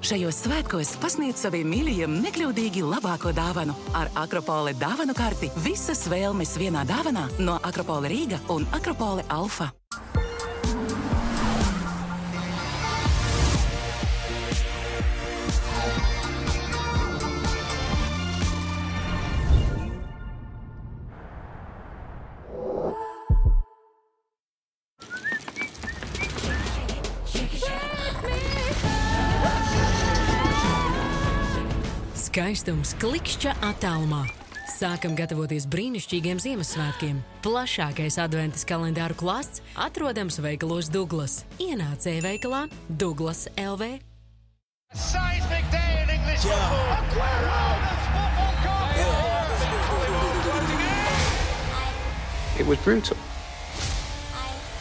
Šajos svētkos pasniedz saviem mīļajiem nekļūdīgi labāko dāvanu. Ar Akropole dāvanu karti visas vēlmes vienā dāvanā no Akropole Rīga un Akropole Alfa. Skaistums klikšķa attālumā. Sākam gatavoties brīnišķīgiem Ziemassvētkiem. Plašākais adventas kalendāru klāsts atrodams veikalos Douglas. Ienāc e-veikalā Douglas LV. Seismic day in English football. It was brutal.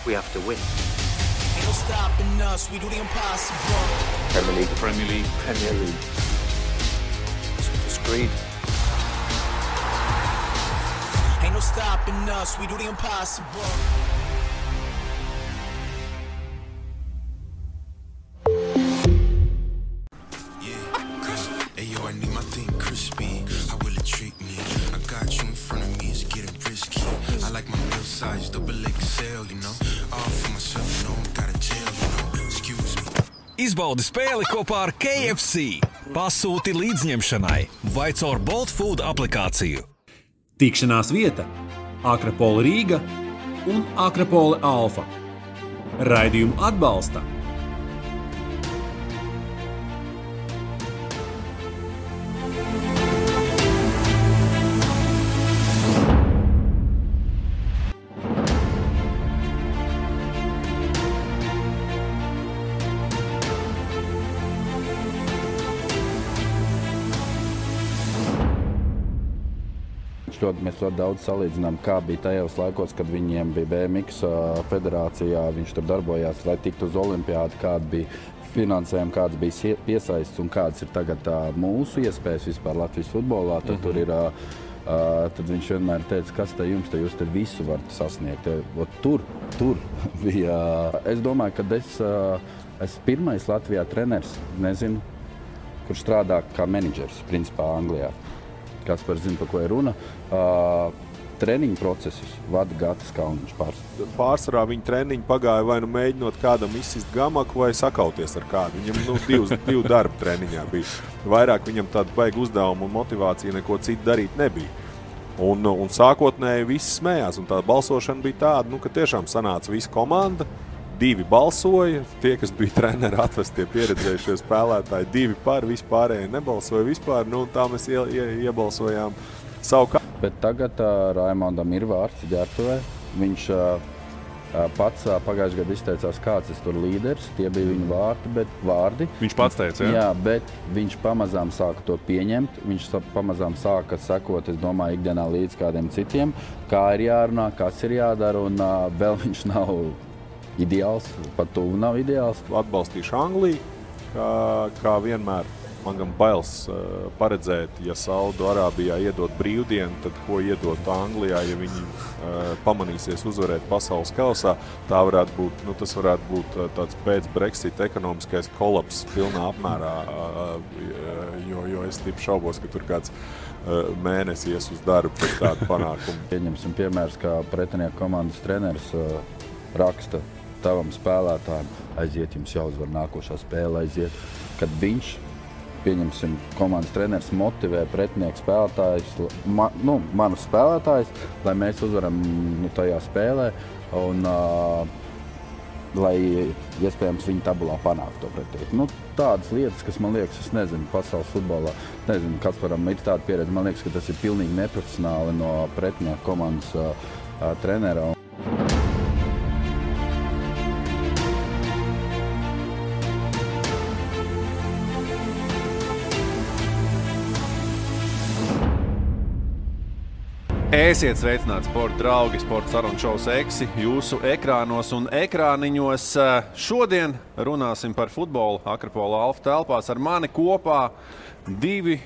We have to win. Ain't no stopping us, we do the impossible. Premier League. Screed. Ain't no stopping us, we do the impossible. Hey yo, I need my thing crispy. How will it treat me? I got you in front of me, it's getting risky. I like my meal size, double XL, you know. All for myself, you know, I'm got a jail, you know. Excuse me. Izbaudi spēli kopā ar KFC. Pasūti līdzņemšanai vai caur Bolt Food aplikāciju. Tikšanās vieta Akropole Rīga un Akropole Alfa. Raidījumu atbalsta Mēs ļoti daudz salīdzinām, kā bija tajos laikos, kad viņiem bija BMX federācijā, viņš tur darbojās, lai tiktu uz olimpiādu, kāda bija finansējuma, kāds bija piesaists un kāds ir tagad mūsu iespējas vispār Latvijas futbolā. Tad, tur ir, tad viņš vienmēr teica, kas te jums, te jūs te visu varat sasniegt. Tur bija, es domāju, ka es pirmais Latvijā treneris, nezinu, kurš strādā kā menedžers, principā Anglijā. Kaspars zina, par ko ir runa. Treniņu procesus vada Gatis Kauniņš pārsvarā. Pārsvarā viņa treniņu pagāja vai nu mēģinot kādam izsist gamaku vai sakauties ar kādu. Viņam divu darbu treniņā bija. Vairāk viņam tādu vajag uzdevumu un motivāciju neko citu darīt nebija. Un sākotnēji visi smējās. Un tā balsošana bija tāda, ka tiešām sanāca visa komanda. 2 balsoja, tie, kas bija treneri atvestie pieredzējušie spēlētāji, 2 par, vispārējie nebalsoja vispār, tā mēs iebalsojām savu kā. Bet tagad Raimondam ir vārds ģērbtuvē. Viņš pats pagājušajā gadā izteicās, kāds tur līderis, tie bija viņa vārdi. Viņš pats teica, jā? Jā, bet viņš pamazām sāka to pieņemt, viņš pamazām sāka sekot, es domāju, ikdienā līdz kādiem citiem, kā ir jārunā, kas ir jādara, un vēl viņš nav ideāls, pat tuvu nav ideāls. Atbalstīšu Angliju, kā vienmēr. Man gan bailes paredzēt, ja Saudu Arābijā iedot brīvdienu, tad ko iedot Anglijā, ja viņi pamanīsies uzvarēt pasaules kausā. Tas varētu būt tāds pēc Brexit ekonomiskais kolaps pilnā apmērā, jo es tipu šaubos, ka tur kāds mēnesis ies uz darbu pēc tādu panākumu. Pieņemsim piemērs, kā pretinieku komandas treneris raksta tavam spēlētājiem, aiziet, jums jāuzvar nākošā spēle, aiziet, kad viņš, pieņemsim, komandas treneris motivē pretinieku spēlētājus, manus spēlētājus, lai mēs uzvaram tajā spēlē un lai iespējams viņi tabulā panāk to pretinieku. Tādas lietas, kas man liekas, es nezinu, pasaules futbolā, nezinu, Kasparam ir tāda pieredze, man liekas, ka tas ir pilnīgi neprofesionāli no pretinieku komandas trenera. Esiet sveicināti, sporta draugi, sporta sarunu šovs Eksi jūsu ekrānos un ekrāniņos. Šodien runāsim par futbolu Akropole Alfa telpās. Ar mani kopā 2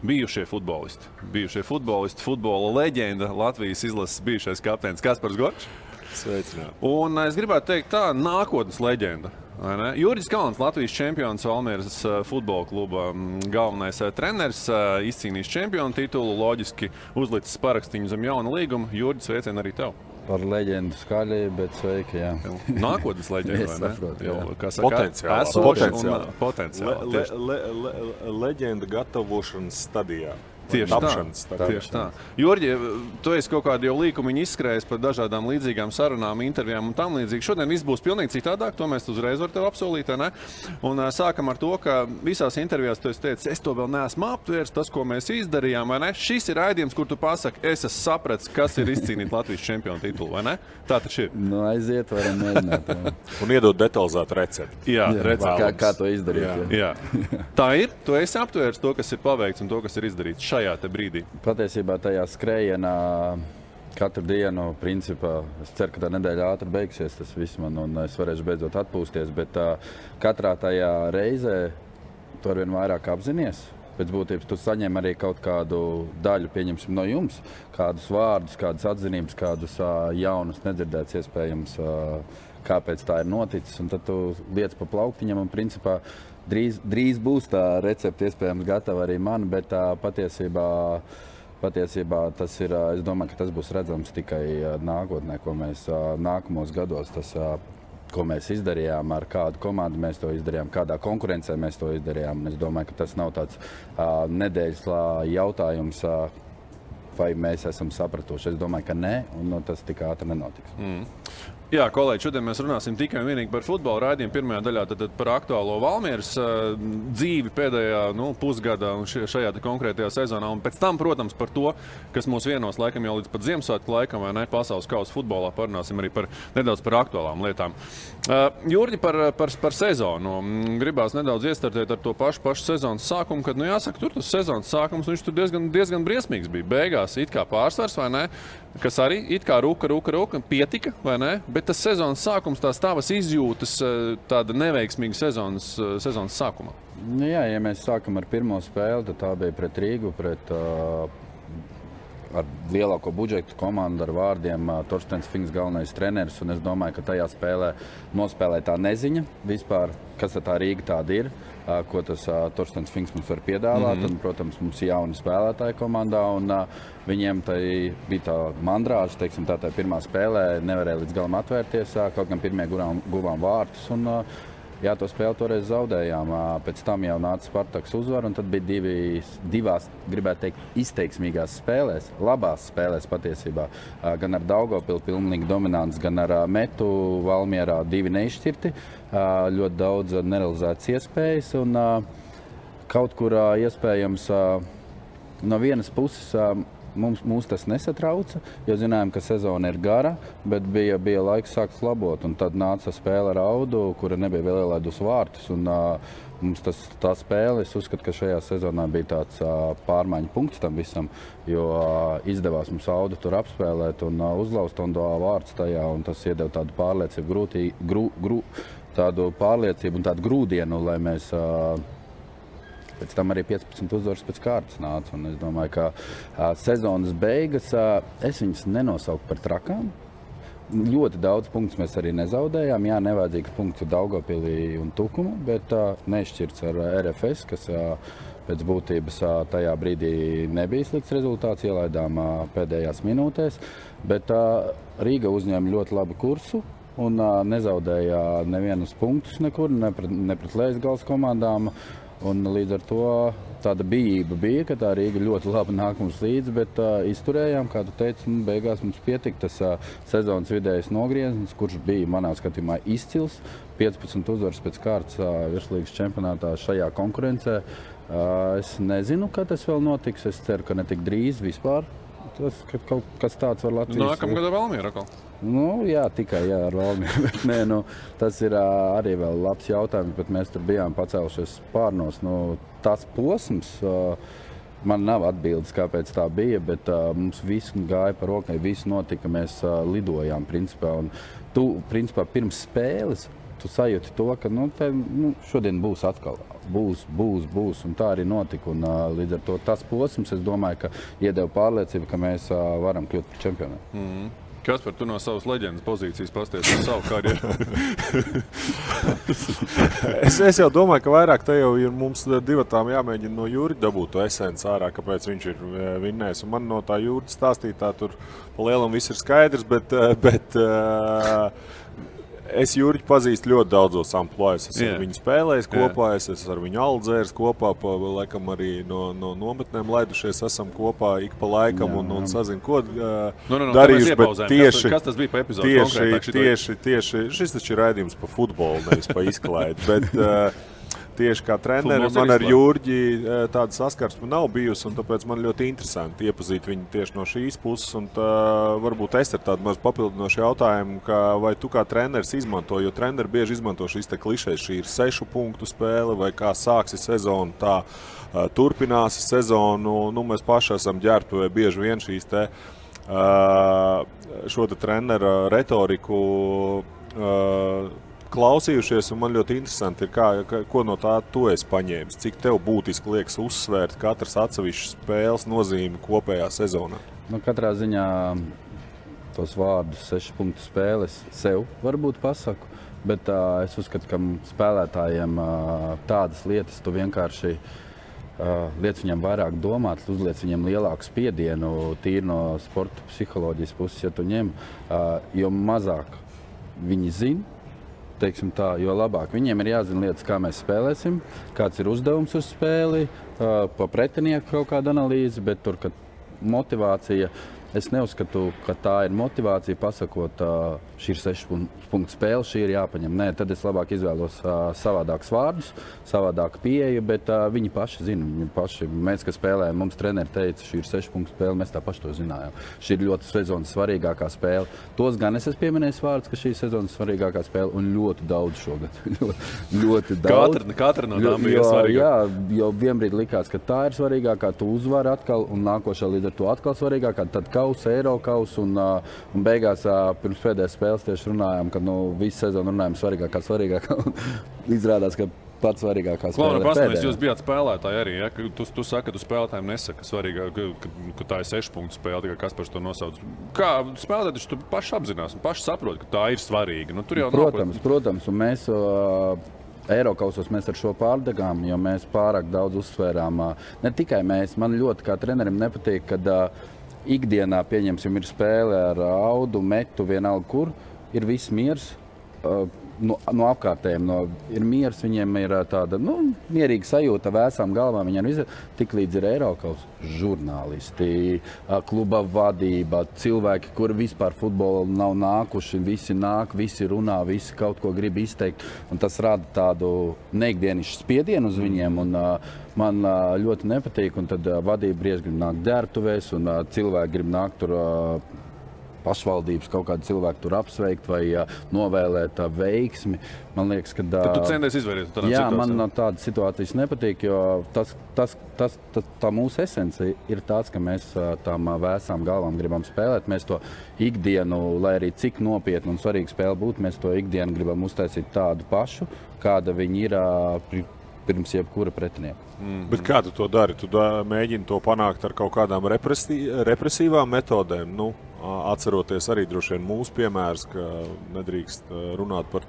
bijušie futbolisti, futbola leģenda, Latvijas izlases bijušais kapteinis Kaspars Gorčs. Sveicināti. Un es gribētu teikt tā, nākotnes leģenda. vai ne? Jurģis Kalns, Latvijas čempions, Valmieras futbola kluba galvenais treneris, izcīnījis čempionu titulu, loģiski uzlicis parakstīņu zem jauna līguma. Jurģis, sveicien arī tev. Par leģendu skaļi, bet sveiki, jā. Nākotnes leģendu, vai ne? Saprotu, jā. Kā saka, potenciāli. Leģenda gatavošanas stadijā. Tieši tā. Jurģi, tu esi kaut kādu jau līkumiņu izskrējis par dažādām līdzīgām sarunām, intervijām un tam līdzīgi. Šodien viss būs pilnīgi citādāk, to mēs uzreiz var tev apsolīt, ne? Un sākam ar to, ka visās intervijās tu esi teicis, es to vēl neesmu aptvērs, tas, ko mēs izdarījām, vai ne? Šis ir raidījums, kur tu pasaki, es esmu sapratis, kas ir izcīnīt Latvijas čempionu titulu, vai ne? Tā taču ir. Nu, aiziet, varam mēģināt. Un iedot detalizētu recepti. Jā, kā to izdarīt. Jā. Tā ir, tu esi aptvērs to, kas ir paveikts un to, kas ir izdarīts šajā te brīdī. Patiesībā tajā skrējienā katru dienu, principā, es ceru, ka tā nedēļa ātri beigsies tas viss man un es varēšu beidzot atpūsties, bet katrā tajā reizē tu arvien vairāk apzinies. Pēc būtības tu saņem arī kaut kādu daļu, pieņemsim no jums, kādus vārdus, kādas atzinības, kādus jaunus nedzirdēts iespējams, kāpēc tā ir noticis, un tad tu liec pa plauktiņam un principā drīz būs tā recepte iespējams gatava arī man, bet patiesībā tas ir, es domāju, ka tas būs redzams tikai nākotnē, ko mēs nākamos gados, tas, ko mēs izdarījām, ar kādu komandu mēs to izdarījām, kādā konkurencē mēs to izdarījām. Es domāju, ka tas nav tāds nedēļas jautājums, vai mēs esam sapratuši. Es domāju, ka nē, un tas tik ātri nenotiks. Jā, kolēģi, šodien mēs runāsim tikai un vienīgi par futbola raidījumu. Pirmajā daļā tad par aktuālo Valmieras dzīvi pēdējā pusgadā un šajā konkrētajā sezonā. Un pēc tam, protams, par to, kas mūs vienos laikam jau līdz pat Ziemassvētku laikam, vai ne, pasaules kausa futbolā, parunāsim arī nedaudz par aktuālām lietām. Jurģi, par sezonu. Gribās nedaudz iestartēt ar to pašu sezonas sākumu, kad, jāsaka, tur tas sezonas sākums, viņš tur diezgan briesmīgs bija. Beigās it kā pārsvars, vai ne, kas arī it kā ruka, pietika, vai ne? Bet tas sezonas sākums, tās tavas izjūtas, tāda neveiksmīga sezonas sākuma. Jā, ja mēs sākam ar pirmo spēli, tad tā bija pret Rīgu, ar lielāko budžetu komandu, ar vārdiem Torstens Finks galvenais treneris, un es domāju, ka tajā spēlē nospēlē tā neziņa vispār, kas tā Rīga tāda ir, ko tas Torstens Finks mums var piedāvāt, un, protams, mums ir jauni spēlētāji komandā, un viņiem bija tā mandrāža, teiksim, tā pirmā spēlē, nevarēja līdz galam atvērties, kaut gan pirmie guvām vārtus, un jā, to spēli toreiz zaudējām. Pēc tam jau nāca Spartaks uzvar, un tad bija divās, gribētu teikt, izteiksmīgās spēlēs, labās spēlēs patiesībā. Gan ar Daugavpili pilnīgi dominants, gan ar Metu Valmierā divi neizšķirti, ļoti daudz nerealizētas iespējas, un kaut kur iespējams no vienas puses Mūs tas nesatrauca, jo zinājām, ka sezona ir gara, bet bija laiks sākt labot. Un tad nāca spēle ar Audu, kura nebija vēl ielaidus vārtus. Un, mums tā spēle, es uzskatu, ka šajā sezonā bija tāds pārmaiņu punkts tam visam, jo izdevās mums Audu tur apspēlēt un uzlauzt un vārds tajā. Un tas iedeva tādu pārliecību, tādu pārliecību un tādu grūdienu, lai mēs pēc tam arī 15 uzvaras pēc kārtas nāca. Un es domāju, ka sezonas beigas es viņas nenosauku par trakām. Ļoti daudz punktus mēs arī nezaudējām. Jā, nevajadzīgs punkts Daugavpilī un Tukuma, bet nešķirts ar RFS, kas pēc būtības tajā brīdī nebija slikts rezultāts, ielaidām pēdējās minūtēs. Bet Rīga uzņēma ļoti labu kursu un nezaudēja nevienus punktus nekur, ne pret Lejas komandām. Un līdz ar to tāda bijība bija, ka tā Rīga ļoti labi nāk mums līdzi, bet izturējām, kā tu teici, beigās mums pietika tas sezonas vidējais nogrieznis, kurš bija manā skatījumā izcils. 15 uzvaras pēc kārtas virslīgas čempionātā šajā konkurencē. Es nezinu, kad tas vēl notiks, es ceru, ka ne tik drīz vispār. Tas, ka kaut kas tāds var Latvijas... Nākamgad ar Valmieru atkal? Jā, tikai ar Valmieru, bet nē, tas ir arī vēl labs jautājums, bet mēs tur bijām pacēlušies spārnos. Tas posms, man nav atbildes, kāpēc tā bija, bet mums viss gāja par rokai, viss notika, mēs lidojām, principā. Un tu, principā, pirms spēles, tu sajūti to, ka šodien būs atkal. Būs, un tā arī notika. Un, līdz ar to tas posms, es domāju, ka iedeva pārliecību, ka mēs varam kļūt par čempionu. Kaspar, tu no savas leģendas pozīcijas pasties uz savu karjeru? Es jau domāju, ka vairāk te jau ir mums divatām jāmēģina no Jurģa dabūt to esenci ārā, kāpēc viņš ir vinnējis. Un man no tā Jurģa stāstītā tur pa lielam viss ir skaidrs, bet es Jurģi pazīstu ļoti daudzos amplojas. Es ar viņu spēlējis kopā, es ar viņu aldzērs kopā, laikam arī no nometnēm laidušies esam kopā ik pa laikam un sazinu, ko darījuši, bet tieši... Kas tas bija pa epizodu konkrētāk? Tieši, šis taču ir raidījums pa futbolu, nevis pa izklaidi, bet... Tieši kā treneri man ar Jurģi tāda saskarsme nav bijusi, un tāpēc man ļoti interesanti iepazīt viņu tieši no šīs puses. Un varbūt es ar tādu maz papildinošu jautājumu, vai tu kā treneris izmanto, jo treneri bieži izmanto šīs te klišejas, šī ir 6 punktu spēle, vai kā sāksi sezonu, tā turpināsi sezonu. Nu, mēs paši esam ģērbtuvē bieži vien šīs te šo te trenera retoriku klausījušies, un man ļoti interesanti ir, ko no tā tu esi paņēmis. Cik tev būtiski liekas uzsvērt katras atsevišķas spēles nozīmi kopējā sezonā? Nu, katrā ziņā tos vārdus 6 punktu spēles sev varbūt pasaku, bet es uzskatu, ka spēlētājiem tādas lietas tu vienkārši liec viņam vairāk domāt, uzliec viņam lielāku spiedienu, tīri no sporta psiholoģijas puses, ja tu ņem, jo mazāk viņi zina, teiksim tā, jo labāk. Viņiem ir jāzina lietas, kā mēs spēlēsim, kāds ir uzdevums uz spēli, pa pretinieku kaut kāda analīze, bet tur, kad motivācija, es neuzskatu, ka tā ir motivācija pasakot, šī ir 6 punktu spēle, šī ir jāpaņem. Nē, tad es labāk izvēlos savādākus vārdus, savādāku pieeju, bet viņi paši zina. Viņi paši, mēs, kas spēlējam, mums treneri teica, šī ir 6 punktu spēle, mēs tā paši to zinājām. Šī ir ļoti sezonas svarīgākā spēle. Tos gan es esmu pieminējis vārdus, ka šī ir sezonas svarīgākā spēle, un ļoti daudz šogad. ļoti daudz. Katra no tām bija svarīgākā. Jā, jo vienbrīd likās, ka tā ir svarīgākā, tu uzvari atkal, un nākošā līdz ar to atkal svarīgākā, tad Eirokaus, un beigās pirms pēdējās spēles tieši runājām, ka visu sezonu runājām svarīgākā, izrādās, ka pats svarīgākā spēle ir pēdējā. Jūs bijāt spēlētāji arī, ja? Tu saki, ka tu spēlētājiem nesaki svarīgāk, ka tā ir 6 punktu spēle, tikai kas par to nosauc. Kā spēlētāji, tu paši apzinās un paši saproti, ka tā ir svarīga. Nu, tur jau protams, un mēs Eirokausos mēs ar šo pārdegām, jo mēs pārāk daudz uzsvērām. Ne tikai mēs, man ļoti kā trenerim nepatīk, kad ikdienā, pieņemsim, ir spēle ar audu, metu, vienalga kur, ir viss miers no apkārtējiem. Ir miers, viņiem ir tāda mierīga sajūta, vēsām galvām, viņiem tik līdz ir Eirokaus žurnālisti, kluba vadība, cilvēki, kuri vispār futbolu nav nākuši, visi nāk, visi runā, visi kaut ko grib izteikt, un tas rada tādu neikdienišu spiedienu uz viņiem, un man ļoti nepatīk, un tad vadība brieži grib nākt ģērbtuvēs, un cilvēki grib nākt tur pašvaldības kaut kādu cilvēku tur apsveikt vai novēlēt veiksmi. Man liekas, ka... Tad tu centies izvairīt tādā situācijā? Jā, man no tādas situācijas nepatīk, jo tā mūsu esence ir tāds, ka mēs tām vēsām galvām gribam spēlēt. Mēs to ikdienu, lai arī cik nopietni un svarīga spēle būtu, mēs to ikdienu gribam uztaisīt tādu pašu, kāda viņi ir pirms jebkura pretinieka. Bet kā tu to dari? Tu mēģini to panākt ar kaut kādām represīvām metodēm? Atceroties arī droši vien mūsu piemērs, ka nedrīkst runāt par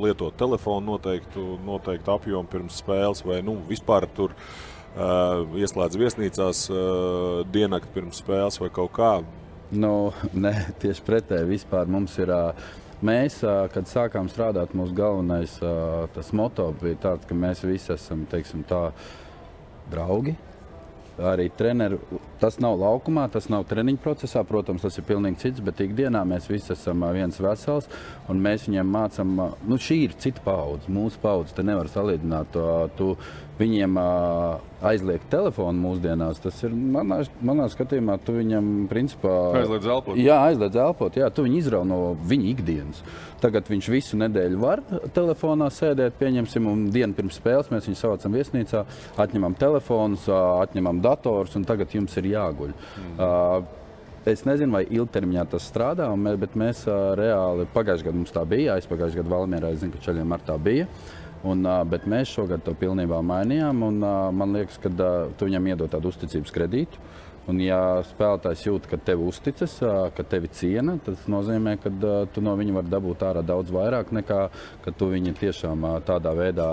lietot telefonu noteiktu apjomu pirms spēles, vai vispār tur ieslēdz viesnīcās diennakti pirms spēles vai kaut kā? Nē, tieši pretēji. Vispār mums ir... Mēs, kad sākām strādāt, mūsu galvenais tas moto bija tāds, ka mēs visi esam, teiksim tā, draugi. Arī treneri, tas nav laukumā, tas nav treniņu procesā, protams, tas ir pilnīgi cits, bet ikdienā mēs visi esam viens vesels, un mēs viņiem mācam, šī ir cita paudze, mūsu paudze, te nevar salīdzināt, tu viņiem aizliegt telefonu mūsdienās, tas ir, manā skatījumā, tu viņam, principā... Aizliedz elpot. Jā, aizliedz elpot, jā, tu viņu izrauj no viņa ikdienas. Tagad viņš visu nedēļu var telefonā sēdēt, pieņemsim, un dienu pirms spēles mēs viņu savācam viesnīcā, atņemam telefonus, atņemam dators, un tagad jums ir jāguļ. Es nezinu, vai ilgtermiņā tas strādā, bet mēs reāli, pagājušajā gadā mums tā bija, aizpagājušajā gadā Valmierā, es zinu, ka Čaļiem ar tā bija. Bet mēs šogad to pilnībā mainījām, un man liekas, ka tu viņam iedod tādu uzticības kredītu. Un, ja spēlētājs jūt, ka tev uzticas, ka tevi ciena, tas nozīmē, ka tu no viņa var dabūt ārā daudz vairāk nekā, ka tu viņu tiešām tādā veidā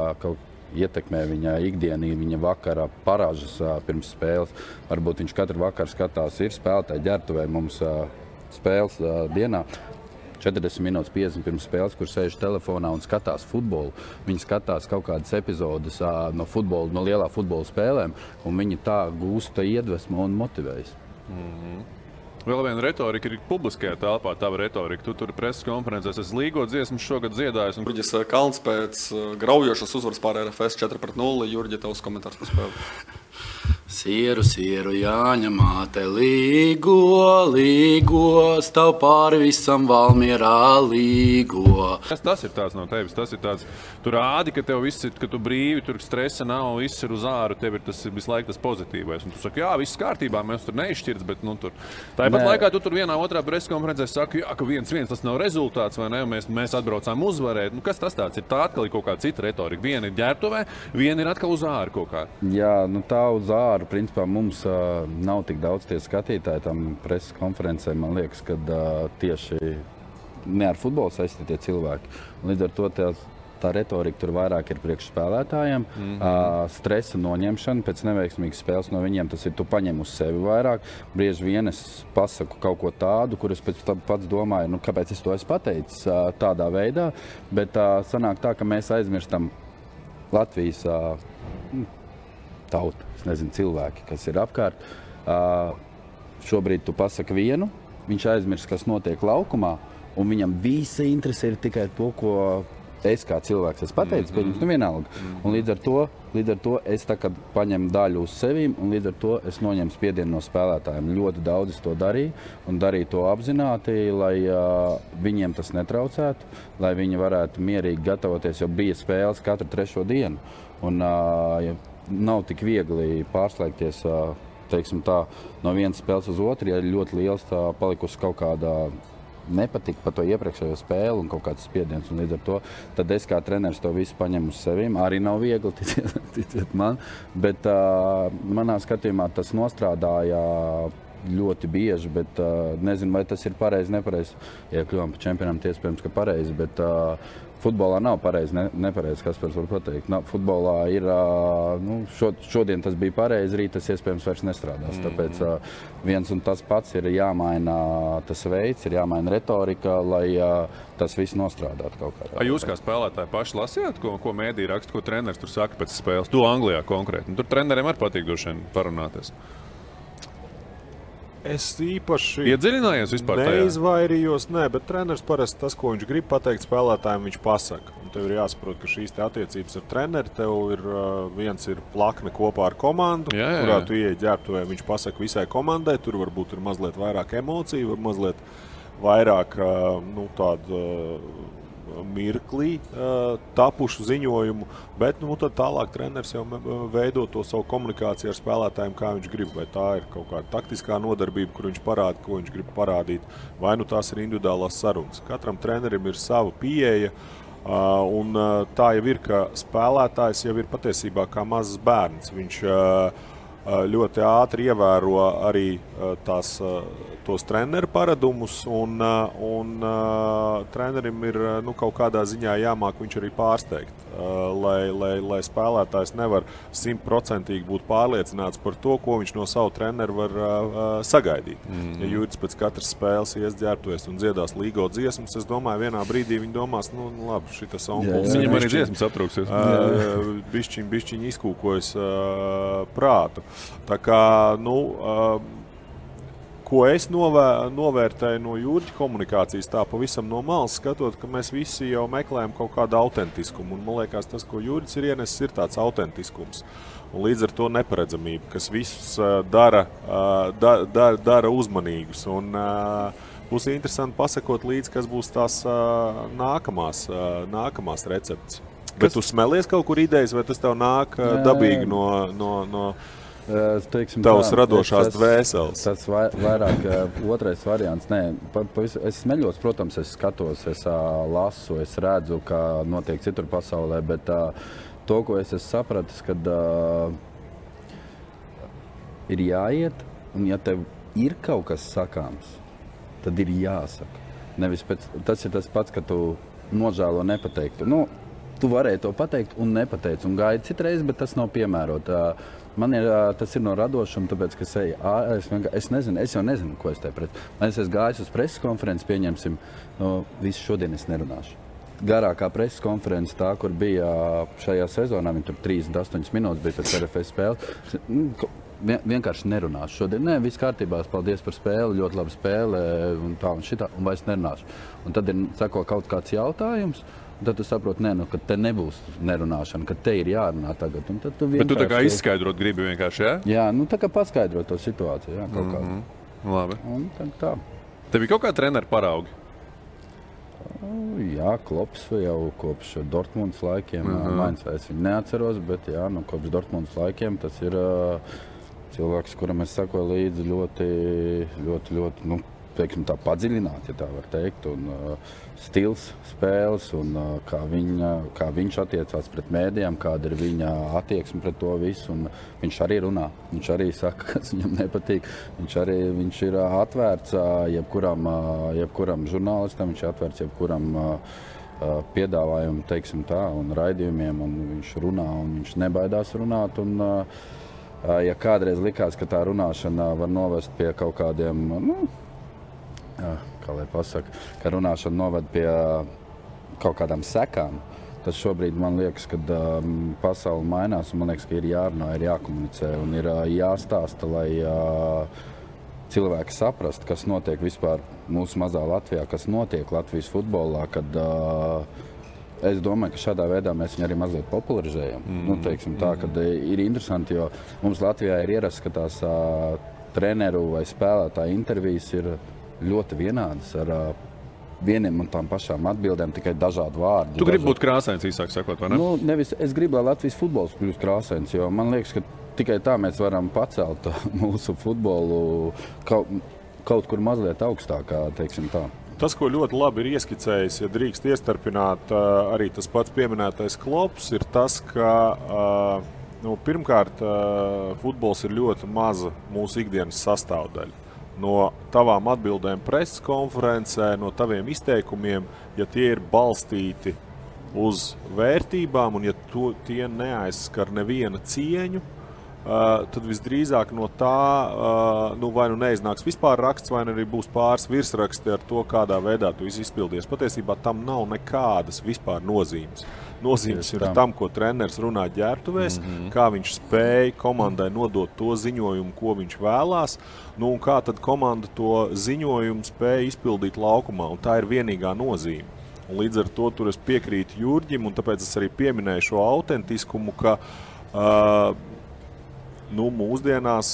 ietekmē viņa ikdienī, viņa vakara paražas pirms spēles. Varbūt viņš katru vakaru skatās, ir spēlētāji ģērbtuvē mums spēles dienā. 40 minūtes 50 pirms spēles, kur sēž telefonā un skatās futbolu. Viņi skatās kaut kādas epizodes no lielā futbola spēlēm, un viņi tā gūsta iedvesmu un motivējas. Vēl viena retorika ir publiskajā telpā, tava retorika. Tu tur preses konferencēs esi Līgo dziesmu šogad dziedājis. Jurģis Kalns pēc graujošas uzvaras pār RFS 4-0. Jurģi, tavs komentārs par spēli. Sieru, Jāņa māte, līgo, stāv pāri visam Valmierā līgo. Kas tas ir tāds no tevis? Tas ir tāds, tu rādi, ka tev viss ir, ka tu brīvi, tur stresa nav, viss ir uz āru, tev ir tas visu laiku tas pozitīvais. Un tu saki, jā, viss kārtībā, mēs tur neizšķirts, bet tur. Tāpat laikā tu tur vienā otrā preskonferencē saki, jā, ka 1-1 tas nav rezultāts, vai ne, mēs atbraucām uzvarēt. Kas tas tāds ir? Tā atkal ir kaut kāda cita retorika. Viena ir ģērbtuvē, viena ir atkal uz āru kaut kā. Jā, tā uz āru. Principā mums nav tik daudz tie skatītāji tam preses konferencē. Man liekas, ka tieši ne ar futbolu saistītie cilvēki. Līdz ar to tā retorika tur vairāk ir priekš spēlētājiem. Stresa noņemšana pēc neveiksmīgas spēles no viņiem, tas ir tu paņem uz sevi vairāk. Bieži vien es pasaku kaut ko tādu, kur es pēc tam pats domāju, kāpēc es to esmu pateicis tādā veidā. Bet sanāk tā, ka mēs aizmirstam Latvijas tauta, es nezinu, cilvēki, kas ir apkārt. Šobrīd tu pasaki vienu, viņš aizmirst, kas notiek laukumā, un viņam visa interese ir tikai to, ko es kā cilvēks esmu pateicis, pieņems, vienalga. Un līdz ar to es tā kā paņemu daļu uz sevīm, un līdz ar to es noņemu spiedienu no spēlētājiem. Ļoti daudz es to darīju, un darīju to apzināti, lai viņiem tas netraucētu, lai viņi varētu mierīgi gatavoties, jo bija spēles katru 3. dienu. Un, nav tik viegli pārslēgties teiksim tā, no vienas spēles uz otru, ja ir ļoti liels palikusi kaut kāda nepatika par to iepriekšējo spēli un kaut kāds spiediens. Un līdz ar to tad es kā treneris to visu paņemu uz sevīm. Arī nav viegli, ticiet man, bet manā skatījumā tas nostrādāja ļoti bieži, bet nezinu, vai tas ir pareizi, nepareizi. Ja kļuvām par čempionām, iespējams, ka pareizi, bet futbolā nav pareizi, nepareizi, kas var pateikt. Futbolā ir, šodien tas bija pareizi, rīt tas iespējams vairs nestrādās. Tāpēc viens un tas pats ir jāmaina tas veids, ir jāmaina retorika, lai tas viss nostrādātu kaut kādā. Jūs kā spēlētāji paši lasījāt, ko mēdī raksta, ko treneris tur saka pēc spēles? Tu Anglijā konkrēti. Tur treneriem arī patīk droši vien parunāties. Es īpaši iedziļinājies vispār tajā? Neizvairījos, bet treneris parasti tas, ko viņš grib pateikt spēlētājiem, viņš pasaka. Un tev ir jāsaprot, ka šīs attiecības ar treneri, tev ir viens ir plakne kopā ar komandu, kurā tu ieej ģērbtuvē, viņš pasaka visai komandai, tur varbūt ir mazliet vairāk emociju, var mazliet vairāk tādu mirklī tapušu ziņojumu, bet tad tālāk treneris jau veido to savu komunikāciju ar spēlētājiem, kā viņš grib. Vai tā ir kaut kāda taktiskā nodarbība, kur viņš parāda, ko viņš grib parādīt, vai tās ir individuālās sarunas. Katram trenerim ir sava pieeja, un tā jau ir, ka spēlētājs jau ir patiesībā kā mazs bērns. Viņš ļoti ātri ievēro arī tos treneru paradumus, un trenerim ir kaut kādā ziņā jāmāk viņš arī pārsteigt, lai spēlētājs nevar 100% būt pārliecināts par to, ko viņš no savu treneru var sagaidīt. Ja Jurģis pēc katras spēles ieģērbtuvies un dziedās Līgo dziesmas, es domāju, vienā brīdī viņi domās, labi, šitas onkulis. Viņam arī dziesmas aptrūksies. Bišķiņ izkūkojas prātu. Tā kā, ko es novērtēju no Jurģa komunikācijas, tā pavisam no malas skatot, ka mēs visi jau meklējam kaut kādu autentiskumu. Un man liekas, tas, ko Jurģis ir ienesis, ir tāds autentiskums. Un līdz ar to neparedzamība, kas visus dara uzmanīgus. Un būs interesanti pasakot līdz, kas būs tās nākamās receptes. Bet tu smelies kaut kur idejas, vai tas tev nāk dabīgi no tavas radošās dvēseles? Tas vairāk otrais variants. Nē, es smeļos, protams, es skatos, es lasu, es redzu, kā notiek citur pasaulē, bet to, ko es esmu sapratis, kad ir jāiet Un ja tev ir kaut kas sakāms, tad ir jāsaka. Nevis tas ir tas pats, ka tu nožēlo nepateiktu. Nu, tu varēji to pateikt un nepateici un gaidi citreiz, bet tas nav piemērot. Man tas ir no radošuma, tāpēc, ka es jau nezinu, ko es te pret. Man es esmu gājis uz preses konferenci, pieņemsim, visu šodien es nerunāšu. Garākā preses konference tā, kur bija šajā sezonā, viņi tur 38 minūtes bija pēc RFS spēles. Vienkārši nerunāšu šodien. Nē, viss kārtībā, paldies par spēli, ļoti laba spēle un tā un šitā, un vairs nerunāšu. Un tad sako kaut kāds jautājums, un tad tu saproti, ka te nebūs nerunāšana, ka te ir jārunā tagad. Un tad tu Bet tu tā kā izskaidrot gribi vienkārši, jā? Jā, tā kā paskaidrot to situāciju, jā, kaut kādu. Labi. Un tā. Tev ir kaut kā treneri paraugi? Jā, Klops jau kopš Dortmundas laikiem. Mainz es viņu neatceros, bet jā, kopš Dortmundas laikiem tas ir cilvēks, kuram es sakoju līdzi ļoti, teiksim tā, padziļināt, ja tā var teikt, un stils spēles, un kā viņš attiecās pret mēdījām, kāda ir viņa attieksme pret to visu, un viņš arī runā, viņš arī saka, kas viņam nepatīk, viņš ir atvērts jebkuram žurnālistam, viņš ir atvērts jebkuram piedāvājumu, teiksim tā, un raidījumiem, un viņš runā, un viņš nebaidās runāt, un ja kādreiz likās, ka tā runāšana var novest pie kaut kādiem, kā lai pasaka, ka runāšana noved pie kaut kādām sekām, tad šobrīd man liekas, ka pasaule mainās, un man liekas, ka ir jārunā, ir jākomunicē, un ir jāstāsta, lai cilvēki saprast, kas notiek vispār mūsu mazā Latvijā, kas notiek Latvijas futbolā, kad es domāju, ka šādā veidā mēs viņu arī mazliet popularizējam. Teiksim tā, kad ir interesanti, jo mums Latvijā ir ierasts, ka tās treneru vai spēlētāju intervijas ir ļoti vienādas ar vieniem un tām pašām atbildēm, tikai dažādi vārdi. Tu gribi būt krāsains, īsāk sakot, vai ne? Nevis es gribu, lai Latvijas futbols kļūst krāsains, jo man liekas, ka tikai tā mēs varam pacelt mūsu futbolu kaut kur mazliet augstākā, teiksim tā. Tas, ko ļoti labi ir ieskicējis, ja drīkst iestarpināt arī tas pats pieminētais Klops, ir tas, ka pirmkārt futbols ir ļoti maza mūsu ikdienas sastāvdaļa. No tavām atbildēm preses konferencē, no taviem izteikumiem, ja tie ir balstīti uz vērtībām un ja tie neaizskar neviena cieņu, tad visdrīzāk no tā vai neiznāks vispār raksts, vai arī būs pāris virsraksti ar to, kādā veidā tu izpildies. Patiesībā tam nav nekādas vispār nozīmes. Nozīmes ir tam, ko treneris runā ģērbtuvēs, kā viņš spēja komandai nodot to ziņojumu, ko viņš vēlās, un kā tad komanda to ziņojumu spēja izpildīt laukumā, un tā ir vienīgā nozīme. Un līdz ar to tur es piekrītu Jurģim, un tāpēc es arī pieminēju šo autentiskumu, ka mūsdienās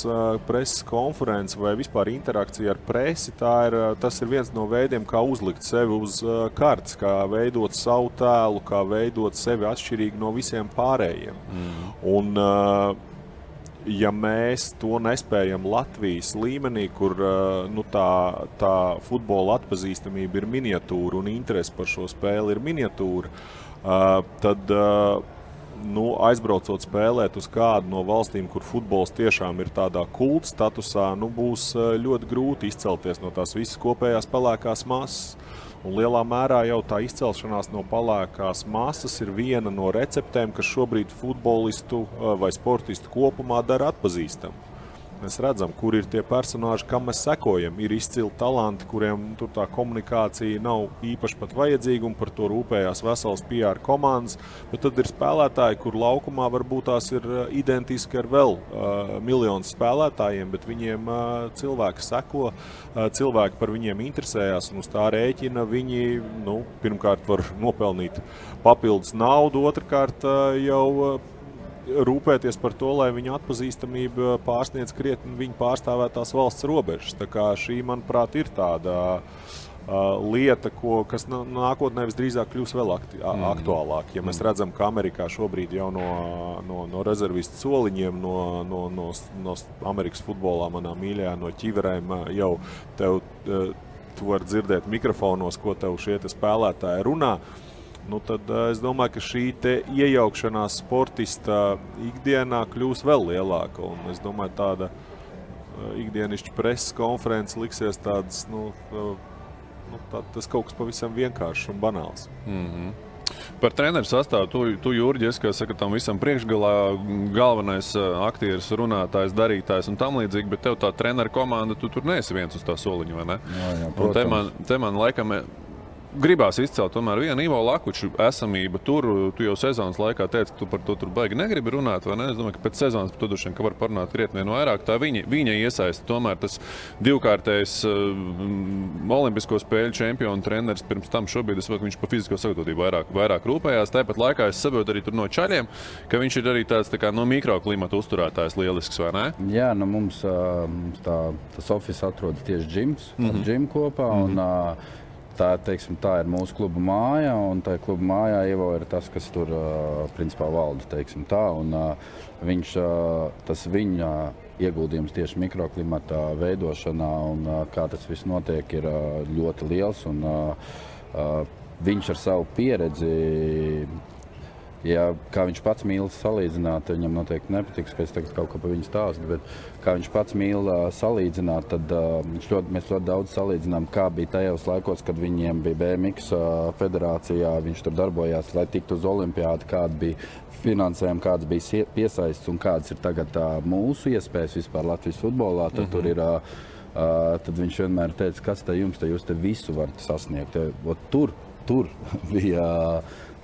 preses konference vai vispār interakcija ar presi, tas ir viens no veidiem, kā uzlikt sevi uz kartes, kā veidot savu tēlu, kā veidot sevi atšķirīgi no visiem pārējiem. Un, ja mēs to nespējam Latvijas līmenī, kur tā futbola atpazīstamība ir miniatūra un interese par šo spēli ir miniatūra, tad aizbraucot spēlēt uz kādu no valstīm, kur futbols tiešām ir tādā kulta statusā, būs ļoti grūti izcelties no tās visas kopējās pelēkās masas. Un lielā mērā jau tā izcelšanās no pelēkās masas ir viena no receptēm, kas šobrīd futbolistu vai sportistu kopumā dara atpazīstamu. Mēs redzam, kur ir tie personāži, kam mēs sekojam. Ir izcili talanti, kuriem tur tā komunikācija nav īpaši pat vajadzīga, un par to rūpējās vesels PR komandas. Bet tad ir spēlētāji, kur laukumā varbūt tās ir identiski ar vēl miljonus spēlētājiem, bet viņiem cilvēki seko, cilvēki par viņiem interesējās, un uz tā rēķina viņi pirmkārt var nopelnīt papildus naudu, otrkārt jau rūpēties par to, lai viņa atpazīstamība pārsniedz krietni viņa pārstāvētās valsts robežas. Tā kā šī, manuprāt, ir tāda lieta, kas nākotnē visdrīzāk kļūs vēl aktuālāk. Ja mēs redzam, ka Amerikā šobrīd jau no rezervistu soliņiem, no Amerikas futbolā, manā mīļajā, no ķiverēm jau tu var dzirdēt mikrofonos, ko tev šie spēlētāji runā. Tad es domāju, ka šī iejaukšanās sportista ikdienā kļūs vēl lielāka. Un es domāju, tāda ikdienišķi preses konferences liksies tādas, tas kaut kas pavisam vienkāršs un banāls. Par treneru sastāvu, tu Jurģi, es, kā saka, tam visam priekšgalā galvenais aktieris, runātājs, darītājs un tam līdzīgi, bet tev tā treneru komanda, tu tur neesi viens uz tā soliņa, vai ne? Jā, un te man laikam gribās izcelt tomēr vienu Ivo Lakuču esamību tur. Tu jau sezonas laikā teici, ka tu par to tur baigi negribi runāt, vai ne? Es domāju, ka pēc sezonas par to droši vien, ka var parunāt krietni vairāk. Tā viņa iesaista tomēr tas divkārtējs olimpisko spēļu čempionu treneris pirms tam šobrīd, es saprotu, ka viņš pa fizisko sagatavotību vairāk rūpējās. Tāpat laikā es saprotu arī tur no čaļiem, ka viņš ir arī tāds tā kā no mikroklimata uzturētājs lielisks, vai ne? Jā, mums tas office atrodas tieši džims kopā, un tā ir mūsu kluba māja, un tā kluba mājā Ivo ir tas, kas tur principā valda, teiksim tā, un tas viņa ieguldījums tieši mikroklimata veidošanā, un kā tas viss notiek, ir ļoti liels, un viņš ar savu pieredzi, kā viņš pats mīl salīdzināt, viņam noteikti nepatiks, ka es tagad kaut ko par viņu stāstu, bet kā viņš pats mīl salīdzināt, tad mēs ļoti daudz salīdzinām, kā bija tajos laikos, kad viņiem bija BMX federācijā, viņš tur darbojās, lai tiktu uz olimpiādu, kāda bija finansējumi, kāds bija piesaists un kādas ir tagad mūsu iespējas vispār Latvijas futbolā, tad tur ir, tad viņš vienmēr teica, kas te jums, jūs te visu varat sasniegt. Tur bija...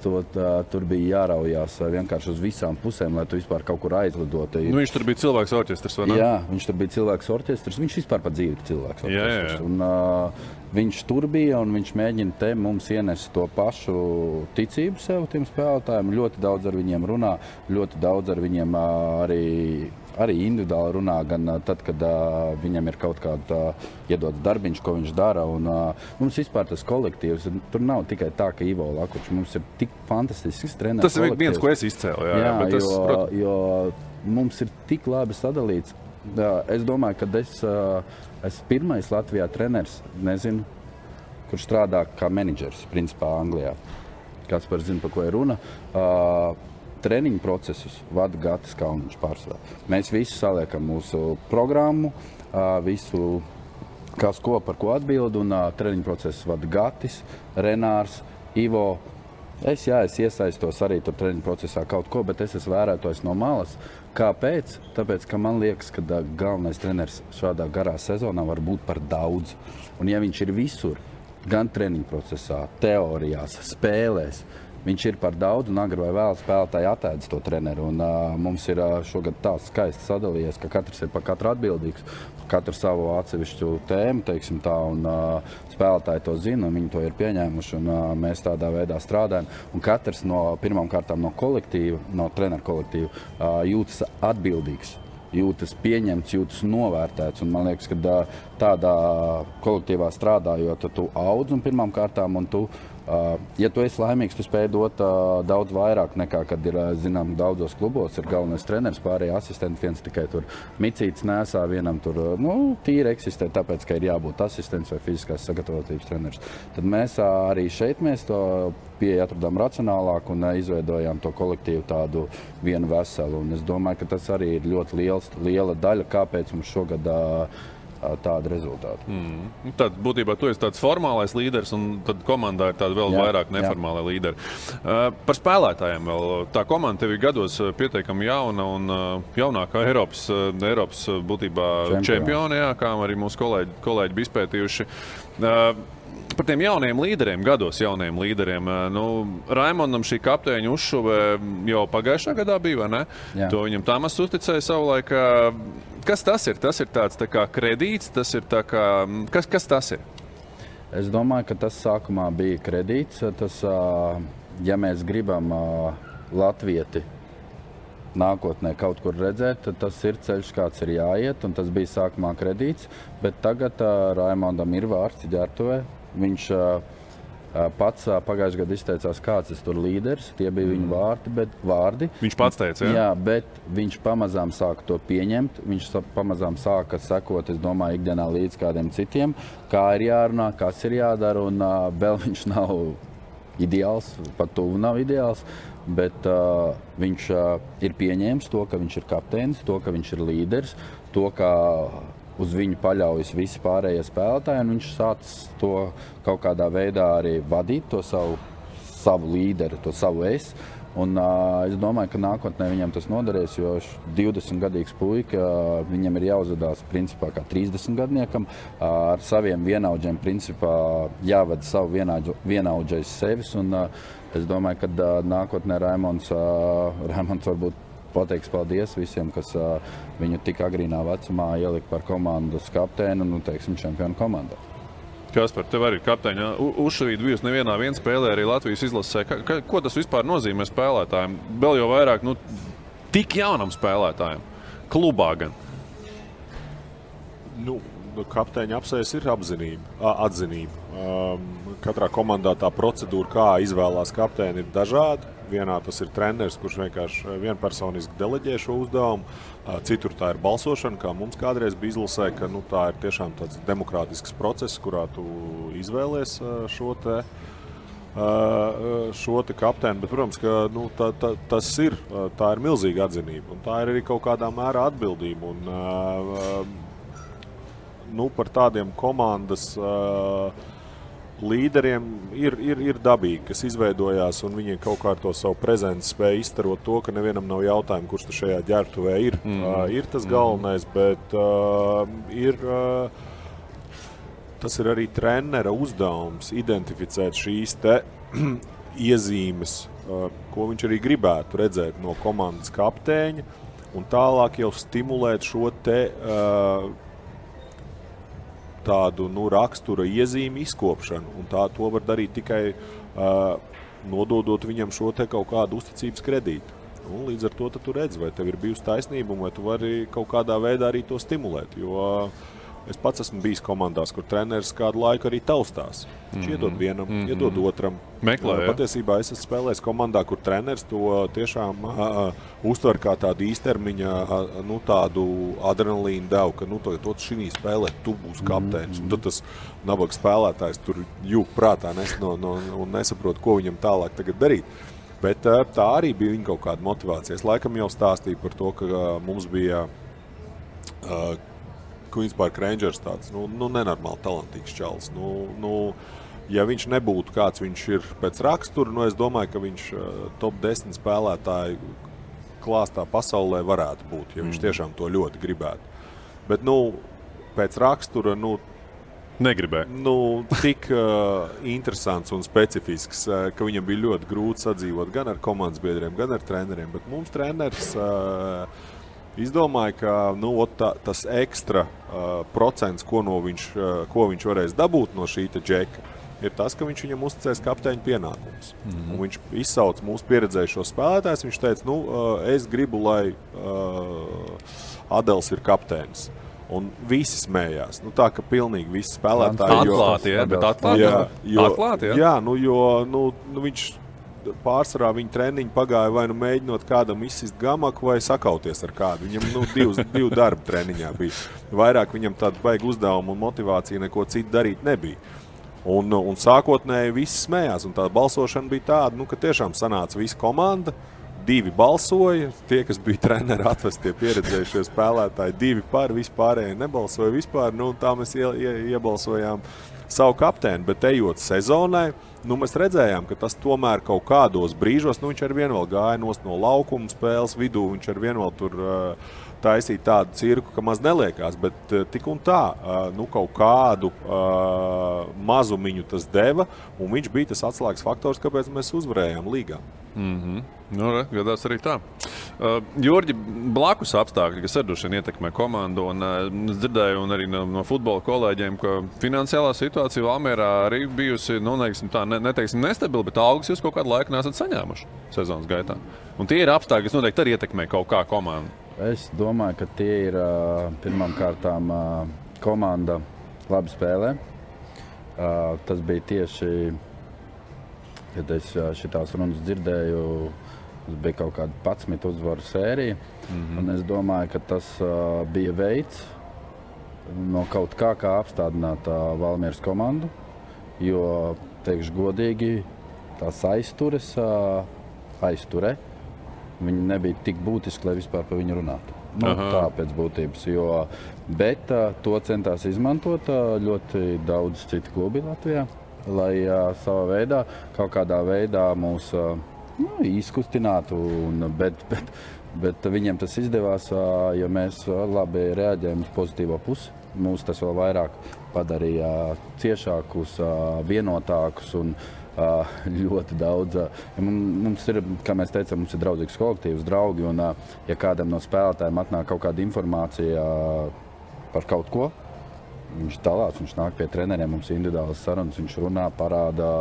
Tur bija jāraujās vienkārši uz visām pusēm, lai tu vispār kaut kur aizlidotu. Viņš tur bija cilvēks orķestrs, vai ne? Jā, viņš tur bija cilvēks orķestrs. Viņš vispār pat dzīvi ir cilvēks orķestrs. Jā. Un viņš tur bija un viņš mēģina te mums ienest to pašu ticību sev tiem spēlētājiem. Ļoti daudz ar viņiem runā, ļoti daudz ar viņiem arī individuāli runā, gan tad, kad viņam ir kaut kāda iedots darbiņš, ko viņš dara. Un, mums vispār tas kolektīvs, tur nav tikai tā, ka Ivo Lakučs, mums ir tik fantastisks treneris. Tas ir viens, ko es izcēlu. Jā, bet jo mums ir tik labi sadalīts. Es domāju, ka es esmu pirmais Latvijā treneris, nezinu, kurš strādā kā menedžers, principā Anglijā. Kāds par zina, par ko ir runa. Treniņu procesus vada Gatis Kalniņš pārsvarā. Mēs visi saliekam mūsu programmu, visu, kas ko par ko atbild, un treniņu procesus vada Gatis, Renārs, Ivo. Es iesaistos arī tur treniņu procesā kaut ko, bet es esmu vērētojis no malas. Kāpēc? Tāpēc, ka man liekas, ka galvenais treneris šādā garā sezonā var būt par daudz. Un ja viņš ir visur, gan treniņu procesā, teorijās, spēlēs, viņš ir par daudz, un agri vai vēl spēlētāji atēdz to treneru. Un, mums ir šogad tā skaisti sadalījies, ka katrs ir par katru atbildīgs, katru savu atsevišķu tēmu, teiksim tā, un spēlētāji to zina, un viņi to ir pieņēmuši, un mēs tādā veidā strādājam. Un katrs pirmām kārtām no kolektīva, no treneru kolektīva, jūtas atbildīgs, jūtas pieņemts, jūtas novērtēts. Un man liekas, ka tādā kolektīvā strādājot, tu audz un pirmām kārtām, un tu, ja tu esi laimīgs, tu spēj dot daudz vairāk nekā, kad ir, zinām, daudzos klubos ir galvenais treneris, pārējie asistenti, viens tikai tur micītes nesā, vienam tur, tīri eksistē, tāpēc, ka ir jābūt asistents vai fiziskās sagatavotības treneris. Tad mēs arī šeit to pieeja atradām racionālāk un izveidojām to kolektīvu tādu vienu veselu. Un es domāju, ka tas arī ir ļoti liela daļa, kāpēc mums šogad tāda rezultāta. Tad būtībā tu esi tāds formālais līderis, un tad komandā ir tāda vēl vairāk neformālā līderi. Par spēlētājiem vēl. Tā komanda tev ir gados pietiekami jauna un jaunākā Eiropas būtībā čempioni, kā arī mūsu kolēģi bija izpētījuši. Par tiem jauniem līderiem, gados jauniem līderiem. Raimondam šī kapteiņa uzšuve jau pagājušā gadā bija, vai ne? Jā. To viņam Tamas uzticēja savulaik. Kas tas ir? Tas ir tāds tā kā kredīts, tas ir tā kā... Kas tas ir? Es domāju, ka tas sākumā bija kredīts. Tas, ja mēs gribam latvieti nākotnē kaut kur redzēt, tad tas ir ceļš, kāds ir jāiet, un tas bija sākumā kredīts. Bet tagad Raimondam ir vārds ģērbtuvē. Viņš pats pagājušajā gadā izteicās, kāds ir tur līderis. Tie bija viņa vārdi. Viņš pats teica, jā? Jā, bet viņš pamazām sāka to pieņemt. Viņš pamazām sāka sekot, es domāju, ikdienā līdz kādiem citiem, kā ir jārunā, kas ir jādara. Un vēl viņš nav ideāls, pat tuvu nav ideāls. Bet viņš ir pieņēmis to, ka viņš ir kapteinis, to, ka viņš ir līderis, to, ka uz viņu paļaujas visi pārējie spēlētāji, un viņš sācis to kaut kādā veidā arī vadīt, to savu līderi, to savu es. Un es domāju, ka nākotnē viņam tas noderēs, jo 20-gadīgs puika, viņam ir jāuzvedās principā kā 30-gadniekam, ar saviem vienaudžiem principā jāvada savu vienaudžais sevis, un es domāju, ka nākotnē Raimonds varbūt pateiks paldies visiem, kas viņu tik agrīnā vecumā ielika par komandas kapteinu, nu, teiksim, čempionu komandā. Kaspar, tev arī kapteiņa uzšavīt bijusi nevienā spēlē arī Latvijas izlasē. Ko tas vispār nozīmē spēlētājiem? Vēl jau vairāk, tik jaunam spēlētājiem. Klubā gan. Kapteiņa apsējas ir atzinība. Katrā komandā tā procedūra, kā izvēlās kapteini, ir dažāda. Vienā tas ir treneris, kurš vienkārši vienpersoniski deleģē šo uzdevumu. Citur tā ir balsošana, kā mums kādreiz bija izlasē, ka tā ir tiešām tāds demokrātisks process, kurā tu izvēlies šo te kapteini. Bet, protams, ka tā ir milzīga atzinība. Un tā ir arī kaut kādā mērā atbildība. Un, par tādiem komandas līderiem ir dabīgi, kas izveidojās, un viņi kaut kā ar to savu prezenci spēja izstarot to, ka nevienam nav jautājumu, kurš tu šajā ģērbtuvē ir. Ir tas galvenais, bet tas ir arī trenera uzdevums identificēt šīs te iezīmes, ko viņš arī gribētu redzēt no komandas kapteiņa, un tālāk jau stimulēt šo te tādu rakstura iezīmi izkopšanu, un to var darīt tikai nododot viņam šo te kaut kādu uzticības kredītu. Un līdz ar to tu redzi, vai tev ir bijusi taisnība, vai tu vari kaut kādā veidā arī to stimulēt, jo es pats esmu bijis komandās, kur treneris kādu laiku arī taustās. Viņš iedod vienam, iedod otram. Meklē, Patiesībā es esmu spēlējis komandā, kur treneris to tiešām uztver kā tādu īstermiņa, tādu adrenalīnu devu, ka to šī spēlē tu būsi kapteinis. Un tad tas nabaga spēlētājs tur jūg prātā un nesaprot, ko viņam tālāk tagad darīt. Bet tā arī bija viņa kaut kāda motivācija. Es laikam jau stāstīju par to, ka mums bija Queen's Park Rangers tāds, nenormāli talantīgs čalis. Ja viņš nebūtu kāds viņš ir pēc rakstura, es domāju, ka viņš top 10 spēlētāju klāstā pasaulē varētu būt, ja viņš tiešām to ļoti gribētu. Bet, pēc rakstura, negribēja. Tik interesants un specifisks, ka viņam bija ļoti grūti sadzīvot gan ar komandas biedriem, gan ar treneriem. Bet mums treneris izdomāja, ka tas ekstra procents, ko viņš varēs dabūt no šī džeka, ir tas, ka viņš viņam uzticēs kapteiņa pienākumus. Un viņš izsauc mūsu pieredzējušos spēlētājs. Viņš teica, es gribu, lai Adels ir kapteinis. Un visi smējās. Tā, ka pilnīgi visi spēlētāji... Atklāti, jā, viņš pārsvarā viņa treniņi pagāja vai mēģinot kādam izsist gamaku vai sakauties ar kādu. Viņam divu darbu treniņā bija. Vairāk viņam tādu vajag uzdevumu un motivāciju neko citu darīt nebija. Un sākotnēji visi smējās. Un tā balsošana bija tāda, ka tiešām sanāca visa komanda. 2 balsoja, tie, kas bija treneri atvestie pieredzējušie spēlētāji, 2 par, vispārēji nebalsoja vispār. Tā mēs iebalsojām savu kapteini, bet ejot sezonai, mēs redzējām, ka tas tomēr kaut kādos brīžos, viņš ar vien vēl gāja no laukuma spēles vidū, viņš ar vien vēl tur taisīja tādu cirku, ka maz neliekās, bet tik un tā, kaut kādu mazumiņu tas deva, un viņš bija tas atslēgas faktors, kāpēc mēs uzvarējām līgā. Gadās arī tā. Jurģi, blakus apstākļi, kas arī ietekmē komandu, un es dzirdēju arī no futbola kolēģiem, ka finansiālā situācija Valmierā arī bijusi, neteiksim nestabila, bet algas jūs kaut kādu laiku nesat saņēmuši sezonas gaitā. Un tie ir apstākļi, kas noteikti arī ietekmē kaut kā komandu. Es domāju, ka tie ir pirmām kārtām komanda labi spēlē. Tas bija tieši, kad es šitās runas dzirdēju, tas bija kaut kāda 11 uzvaru sērija. Un es domāju, ka tas bija veids no kaut kā apstādināt Valmieras komandu, jo, teikšu godīgi, tās aizture, viņi nebija tik būtiski, lai vispār par viņu runātu. Tā pēc būtības, bet to centās izmantot ļoti daudz citu klubi Latvijā, lai savā veidā, kaut kādā veidā mūs izkustinātu, bet viņiem tas izdevās, jo mēs labi reaģējam uz pozitīvo pusi. Mūs tas vēl vairāk padarīja ciešākus, vienotākus un ļoti daudz. Mums ir, kā mēs teicām, mums ir draudzīgs kolektīvs, draugi, un ja kādam no spēlētājiem atnāk kaut kāda informācija par kaut ko, viņš dalās, viņš nāk pie treneriem, mums individuālas sarunas, viņš runā, parāda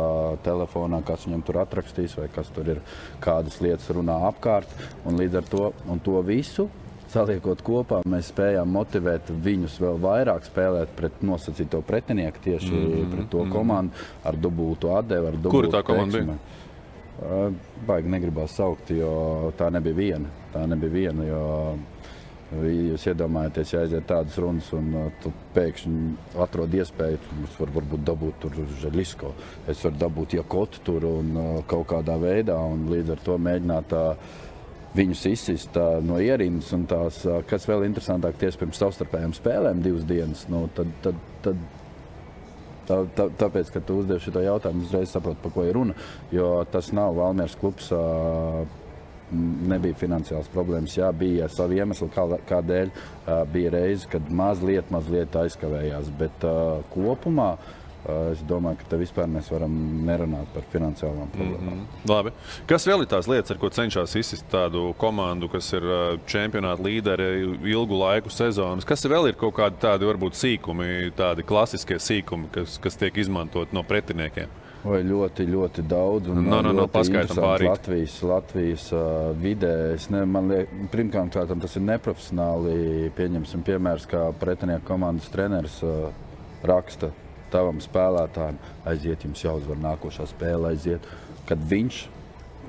telefonā, kas viņam tur atrakstīs vai kas tur ir, kādas lietas runā apkārt, un līdz ar to visu saliekot kopā, mēs spējām motivēt viņus vēl vairāk spēlēt pret nosacīto pretinieku, tieši pret to komandu, ar dubultu atdevi, ar dubultu Kura tā komanda bija? Baigi negribās saukt, jo tā nebija viena, jo jūs iedomājaties, ja aiziet tādas runas un tu pēkšņi atrod iespēju, es varu varbūt dabūt tur Želisko, es varu dabūt Jakotu tur un kaut kādā veidā, un līdz ar to mēģināt viņus izsist no ierindas, un tās, kas vēl interesantāk, tieši pirms savstarpējām spēlēm 2 dienas, tāpēc, ka tu uzdevi šito jautājumu, uzreiz saproti, par ko ir runa, jo tas nav Valmieras klubs, nebija finansiāls problēmas, bija savi iemesli, kādēļ bija reize, kad mazliet aizkavējās, bet kopumā es domāju, ka te vispār mēs varam nerunāt par finansiālām problēmām. Labi. Kas vēl ir tās lietas, ar ko cenšas izsist tādu komandu, kas ir čempionāta līderi ilgu laiku sezonas? Kas vēl ir kaut kādi tādi varbūt sīkumi, tādi klasiskie sīkumi, kas tiek izmantot no pretiniekiem? Oi, ļoti, ļoti daudz. Un paskaitam pārīt. Latvijas vidē. Pirmkārt, tas ir neprofesionāli. Pieņemsim piemērs, kā pretinieku komandas treneris raksta tavam spēlētājiem, aiziet, jums jāuzvar nākošā spēle, aiziet. Kad viņš,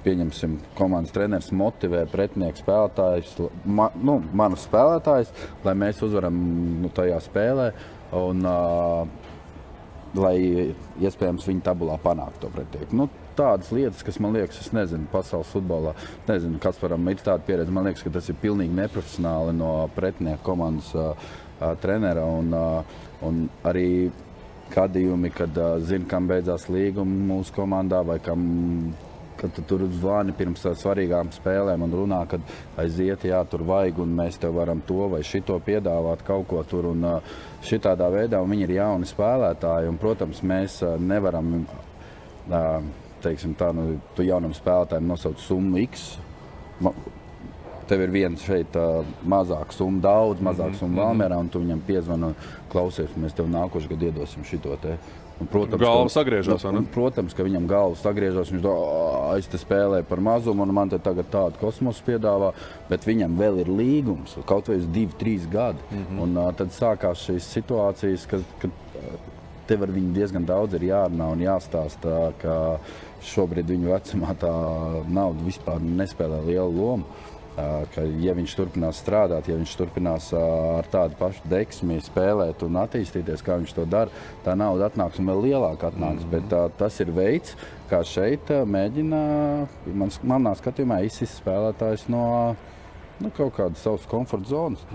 pieņemsim, komandas treneris motivē pretinieku spēlētājus, manus spēlētājus, lai mēs uzvaram tajā spēlē un lai iespējams viņa tabulā panākt to pretinieku. Tādas lietas, kas man liekas, es nezinu, pasaules futbolā, nezinu, Kasparam ir tāda pieredze, man liekas, ka tas ir pilnīgi neprofesionāli no pretinieku komandas trenera un arī gadījumi, kad zina, kam beidzās līguma mūsu komandā vai kad tu tur zvani pirms svarīgām spēlēm un runā, kad aiziet, tur vajag un mēs tev varam to vai šito piedāvāt kaut ko tur un šitādā veidā, un viņi ir jauni spēlētāji un, protams, mēs nevaram, teiksim tā, tu jaunam spēlētājiem nosauc summu X, tev ir viens šeit mazāk summa, daudz mazāk summa Valmierā, un tu viņam piezvani, klausies, mēs tev nākošu gadu iedosim šito te. Un, protams, galva sagriežās, vai ne? Protams, ka viņam galva sagriežās, viņš es te spēlēju par mazumu, un man te tagad tādu kosmosu piedāvā, bet viņam vēl ir līgums, kaut vai uz 2-3 gadi. Un tad sākās šīs situācijas, kad tev ar viņu diezgan daudz ir jārunā un jāstāsta, ka šobrīd viņu vecumā tā nauda vispār nespēlē lielu lomu. Ka, ja viņš turpinās strādāt, ja viņš turpinās ar tādu pašu deksmi spēlēt un attīstīties, kā viņš to dara, tā nauda atnāks un vēl lielāk atnāks. Bet tas ir veids, kā šeit mēģina, manā skatījumā, izsist spēlētājs no kaut kādas savas komforta zonas.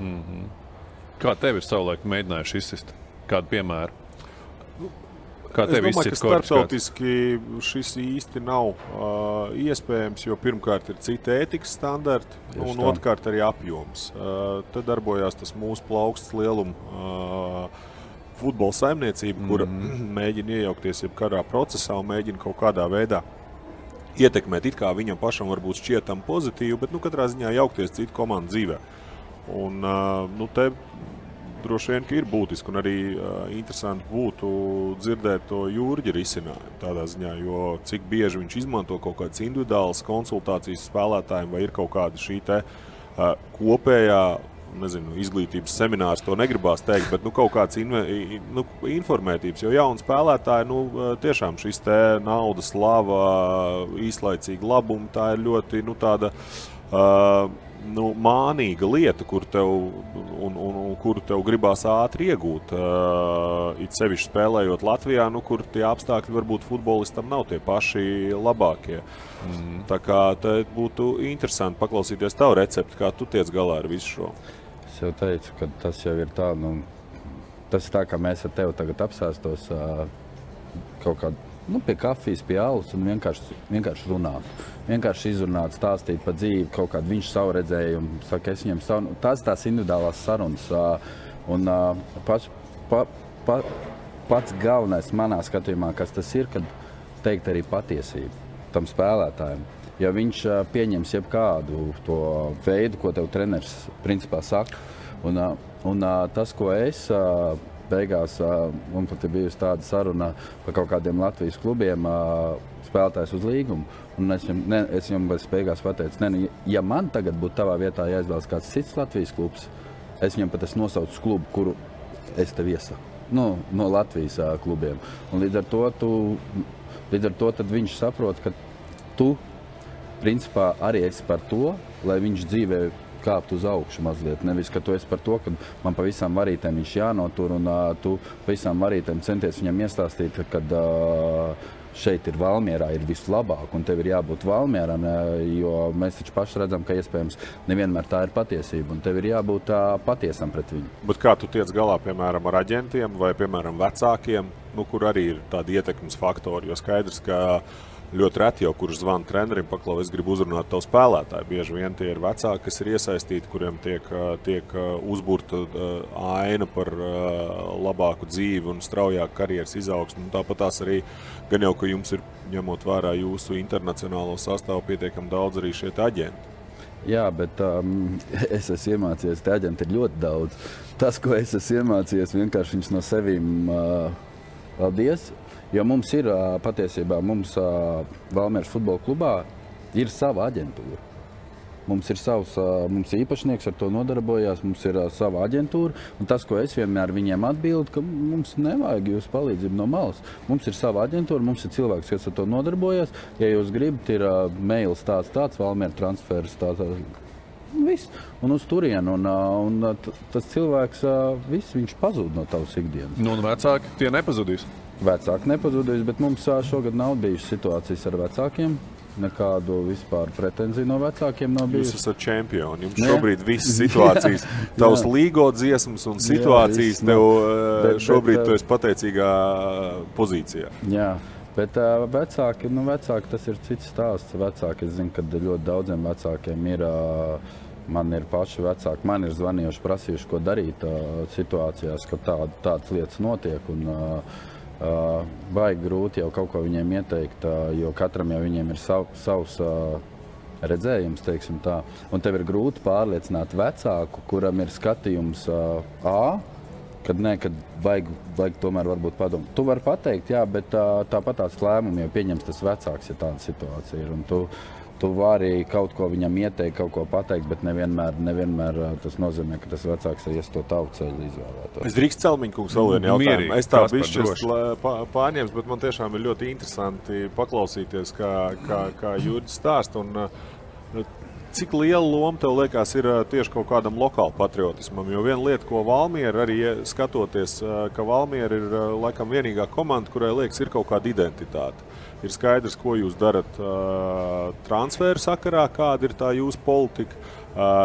Kā tev ir savulaik mēģinājuši izsist? Kādu piemēru? Es domāju, ka starptautiski šis īsti nav iespējams, jo pirmkārt ir cita ētikas standarti un otrkārt arī apjoms. Te darbojās tas mūsu plaukstas lieluma futbola saimniecība, kura mēģina iejaukties jebkurā procesā un mēģina kaut kādā veidā ietekmēt, it kā viņam pašam varbūt šķietam pozitīvi, bet katrā ziņā jaukties citu komandu dzīvē. Un te droši vien, ka ir būtiski un arī interesanti būtu dzirdēt to Jurģa risinājumu tādā ziņā, jo cik bieži viņš izmanto kaut kādas individuālas konsultācijas spēlētājiem vai ir kaut kāda šī te kopējā, izglītības seminārs, to negribās teikt, bet kaut kāds informētības, jo jauni spēlētāji, tiešām šis te naudas, slava, īslaicīga labuma, tā ir ļoti, tāda mānīga lieta, kuru tev gribās ātri iegūt. It sevišķi spēlējot Latvijā, kur tie apstākļi varbūt futbolistam nav tie paši labākie. Tā kā te būtu interesanti paklausīties tavu recepti, kā tu tiec galā ar visu šo. Es jau teicu, ka tas jau ir tā, tas ir tā, kā mēs ar tevi tagad apsēstos kaut kādā pie kafijas, pie alus un vienkārši runāt. Vienkārši izrunāt, stāstīt par dzīvi, kaut kādu viņš savu redzējumu, saka, es viņam savu. Tās individuālās sarunas. Un pats galvenais manā skatījumā, kas tas ir, kad teikt arī patiesību tam spēlētājiem. Ja viņš pieņems jebkādu to veidu, ko tev treneris principā saka, un tas, ko es beigās, man pat ir bijusi tāda saruna par kaut kādiem Latvijas klubiem, spēlētājs uz līgumu, un es viņam beigās pateicu, ja man tagad būtu tavā vietā jāizvēlas kāds cits Latvijas klubs, es viņam pat nosaucu klubu, kuru es tev iesaku, no Latvijas klubiem. Un līdz ar to tad viņš saprot, ka tu principā arī esi par to, lai viņš dzīvē kāpt uz augšu mazliet. Nevis, ka tu esi par to, ka man pa visām varītēm viņš jānotur un tu pa visām varītēm centies viņam iestāstīt, kad šeit ir Valmierā, ir vislabāk un tev ir jābūt Valmierā, jo mēs taču paši redzam, ka iespējams nevienmēr tā ir patiesība un tev ir jābūt patiesam pret viņu. Bet kā tu tiec galā, piemēram, ar aģentiem vai, piemēram, vecākiem, kur arī ir tādi ietekmes faktori, jo skaidrs, ka ļoti reti jau, kurš zvana trenerim, paklau, es gribu uzrunāt tavu spēlētāju. Bieži vien tie ir vecāki, kas ir iesaistīti, kuriem tiek uzburta aina par labāku dzīvi un straujāku karjeras izaugsmu. Tāpat tās arī, gan jau, ka jums ir, ņemot vērā jūsu internacionālo sastāvu, pietiekami daudz arī šie aģenti. Jā, bet es esmu iemācījies, te aģenti ir ļoti daudz. Tas, ko es esmu iemācījies, vienkārši viņus no sevīm paldies. Jo mums ir patiesībā, Valmieras futbola klubā ir sava aģentūra. Mums ir mums īpašnieks ar to nodarbojās, mums ir sava aģentūra. Un tas, ko es vienmēr viņiem atbildu, ka mums nevajag jūsu palīdzību no malas. Mums ir sava aģentūra, mums ir cilvēks, kas ar to nodarbojās. Ja jūs gribat, ir mails tāds, Valmiera transfers, viss. Un uz turienu. Un tas cilvēks, viņš pazūd no tavas ikdienas. Un vecāki tie nepazudīs? Vecāki nepazudīs, bet mums šogad nav bijušas situācijas ar vecākiem. Nekādu vispār pretenziju no vecākiem nav bijusi. Jūs esat čempioni. Jums šobrīd visas situācijas, tavs līgo dziesmas un situācijas tev šobrīd tu esi pateicīgā pozīcijā. Jā, bet vecāki tas ir cits stāsts. Vecāki, es zinu, ka ļoti daudziem vecākiem ir... Man ir paši vecāki, man ir zvanījuši, prasījuši, ko darīt situācijās, ka tādas lietas notiek. Un, baigi grūti jau kaut ko viņiem ieteikt, jo katram jau viņiem ir savs redzējums, teiksim tā. Un tev ir grūti pārliecināt vecāku, kuram ir skatījums kad vajag tomēr varbūt padomāt. Tu vari pateikt, jā, bet tāpat tās lēmumi jau pieņems tas vecāks, ja tāda situācija ir. Un tu vari kaut ko viņam ieteikt, kaut ko pateikt, bet nevienmēr tas nozīmē, ka tas vecāks ies to tavu ceļu izvēlētos. Es drīkst Celmiņkungs vēl vienu jautājumu. Es tā bišķis pārņems, bet man tiešām ir ļoti interesanti paklausīties, kā Jurģis stāst. Un cik liela loma tev liekas ir tieši kaut kādam lokālu patriotismam? Jo viena lieta, ko Valmiera arī skatoties, ka Valmiera ir laikam vienīgā komanda, kurai liekas ir kaut kāda identitāte. Ir skaidrs, ko jūs darat transferu sakarā, kāda ir tā jūsu politika.